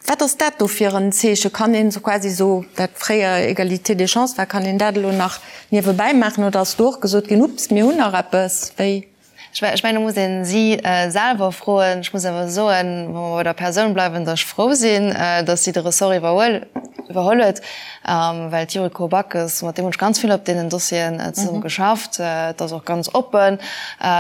Wat ass dat do fir en Zeeche? Kann een esou quasi esou, wat fréier Égalité des chances war, kann een dat elo nach niewebäi maachen oder ass do och gesot ginn, Ups, mir hunn nach eppes? Wéi? Ech mengen, do muss ee si selwer froen. Ech muss awer soen, wa mer bei der Persoun bleiwen, datt ech frou sinn, datt si de Ressort iwwerhuel iwwerholl huet, well d'Yuriko Backes, mat deem hunn ech ganz vill op deenen Dossieren zesumme geschafft, et ass och ganz oppen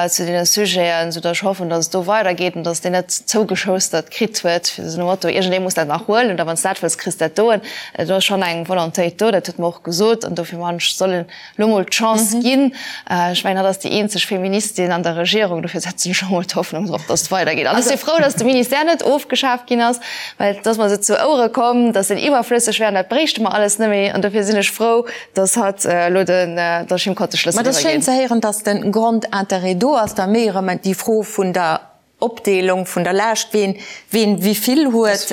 zu deene Sujeten, soudatt ech hoffen, datt et do weidergeet an datt deen net zougeschoustert kritt huet, fir esou nom Motto, iergendee muss dat nach huelen oder wann s dat wëlls, kriss dat doen. Do ass schonn eng Volontéit do, dat huet mer och gesot an dofir man ech, soll en lo mol d'Chance ginn. Ech mengen, hatt ass déi eenzeg Feministin an der Regierung, dofir setzen ech och mol d'Hoffnung drop, datt et weidergeet. An ech si frou, datt de Ministère net ofgeschaaft ginn ass, well et ass mer esou zu Ouere komm, datt en iwwerflësseg wär an dat bréichte mer alles net méi. An dofir sinn ech frou, datt hatt elo den, datt ech him konnt de Schlëssel Mä et ass iwwerginn. schéin ze héieren, datt de Grondintérêt do ass, da méi erëm déi Fro vun der Opdeelung vun der Laascht, ween ween wivill huet.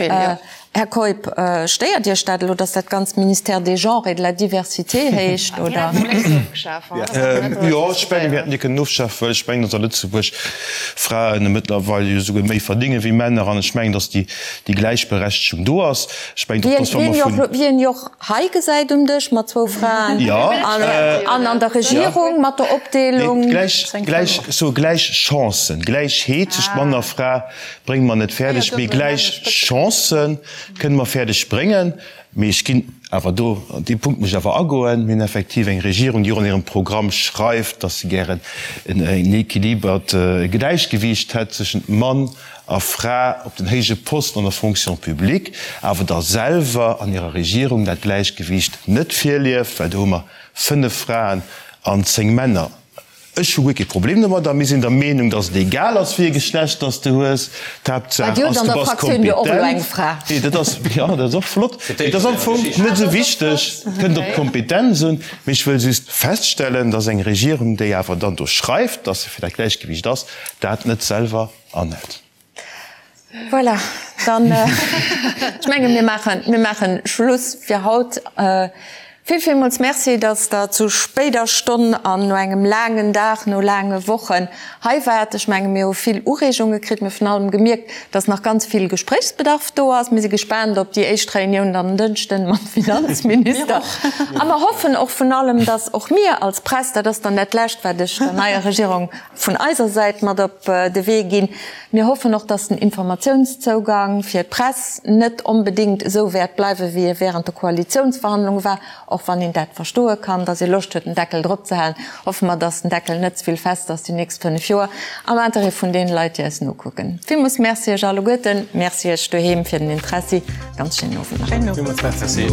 Här Keup, stéiert Iech dat elo, datt dat ganzt Ministère des Genres et de la Diversité heescht, oder? Jo, ech mengen, mir hätten déi kënnen ofschafen, well ech mengen, datt a Lëtzebuerg Fraen mëttlerweil jo esouguer méi verdénge wéi Männer an ech mengen, datt déi Gläichberechtegung do ass. Ech mengen och, datt wa mer vun. Wéi een jo och hei gesäit um Dësch mat zwou Fraen an an der Regierung mat der Opdeelung. Gläich, so gläich Chancen, Gläichheet tëscht Mann a Fra brénge mer net fäerdeg, mee gläich Chancë kënne mer fäerdeg bréngen. Mee ech ginn awer do, an dee Punkt muss ech awer agoen, mir hunn effektiv eng Regierung, déi och an hirem Programm schreift, datt se gären en équilibert Gläichgewiicht hätt tëschent Mann a Fra op den héije Posten an der Fonction publique, awer da selwer an hirer Regierung dat Gläichgewiicht net virlieft, well do hu mer 5 Fraen an 10 Männer. Ech hu guer kee Problem domadder. Mir sinn der Meenung, dass et egal ass, wéi e Geschlecht dass de hues. D'Haaptsaach ass, du bass kompetent. Nee, dat ass, jo, dat ass och flott. Mee dat ass am Fong net esou wichteg. Et kënnt op d'Kompetenz un. Mee ech wëll just feststellen, dass eng Regierung, déi awer dann do schreift, dass se fir dat Gläichgewiicht ass, dat net selwer Annette. Voilà, dann, ech menge mir maachen, mir maachen Schluss fir haut. Vill, villmools Merci, datt Der zu spéider Stonn an no engem laangen Dag, no laange Wochen hei waart. Ech menge mir hu vill Ureegunge kritt. Mir hu virun allem gemierkt, datt nach ganz vill Gespréichsbedarf do ass. Mir si gespaant op déi éischt Reunioun dann en Dënschden mam Finanzminister. A mer hoffen och vun allem, datt och mir als Press, dat ass dann dat Lescht, wat ech der neier Regierung vun eiser Säit mat op de Wee ginn. Mir hoffen och, dass den Informatiounszougang fir d'Press net onbedéngt esou wäert bleiwen, wéi e während de Koalitiounsverhandlunge war, och wann een dat verstoe kann, dass ee Loscht huet, den Deckel drop ze halen. Hoffe mer, dass den Deckel net ze vill fest ass déi nächst 5 Joer, am Interêt vun deene Leit, déi eis nokucken. Villmools Merci Iech alleguerten. Merci Iech doheem fir den Interessi. Ganz schéinen Owend nach. Villmools Merci.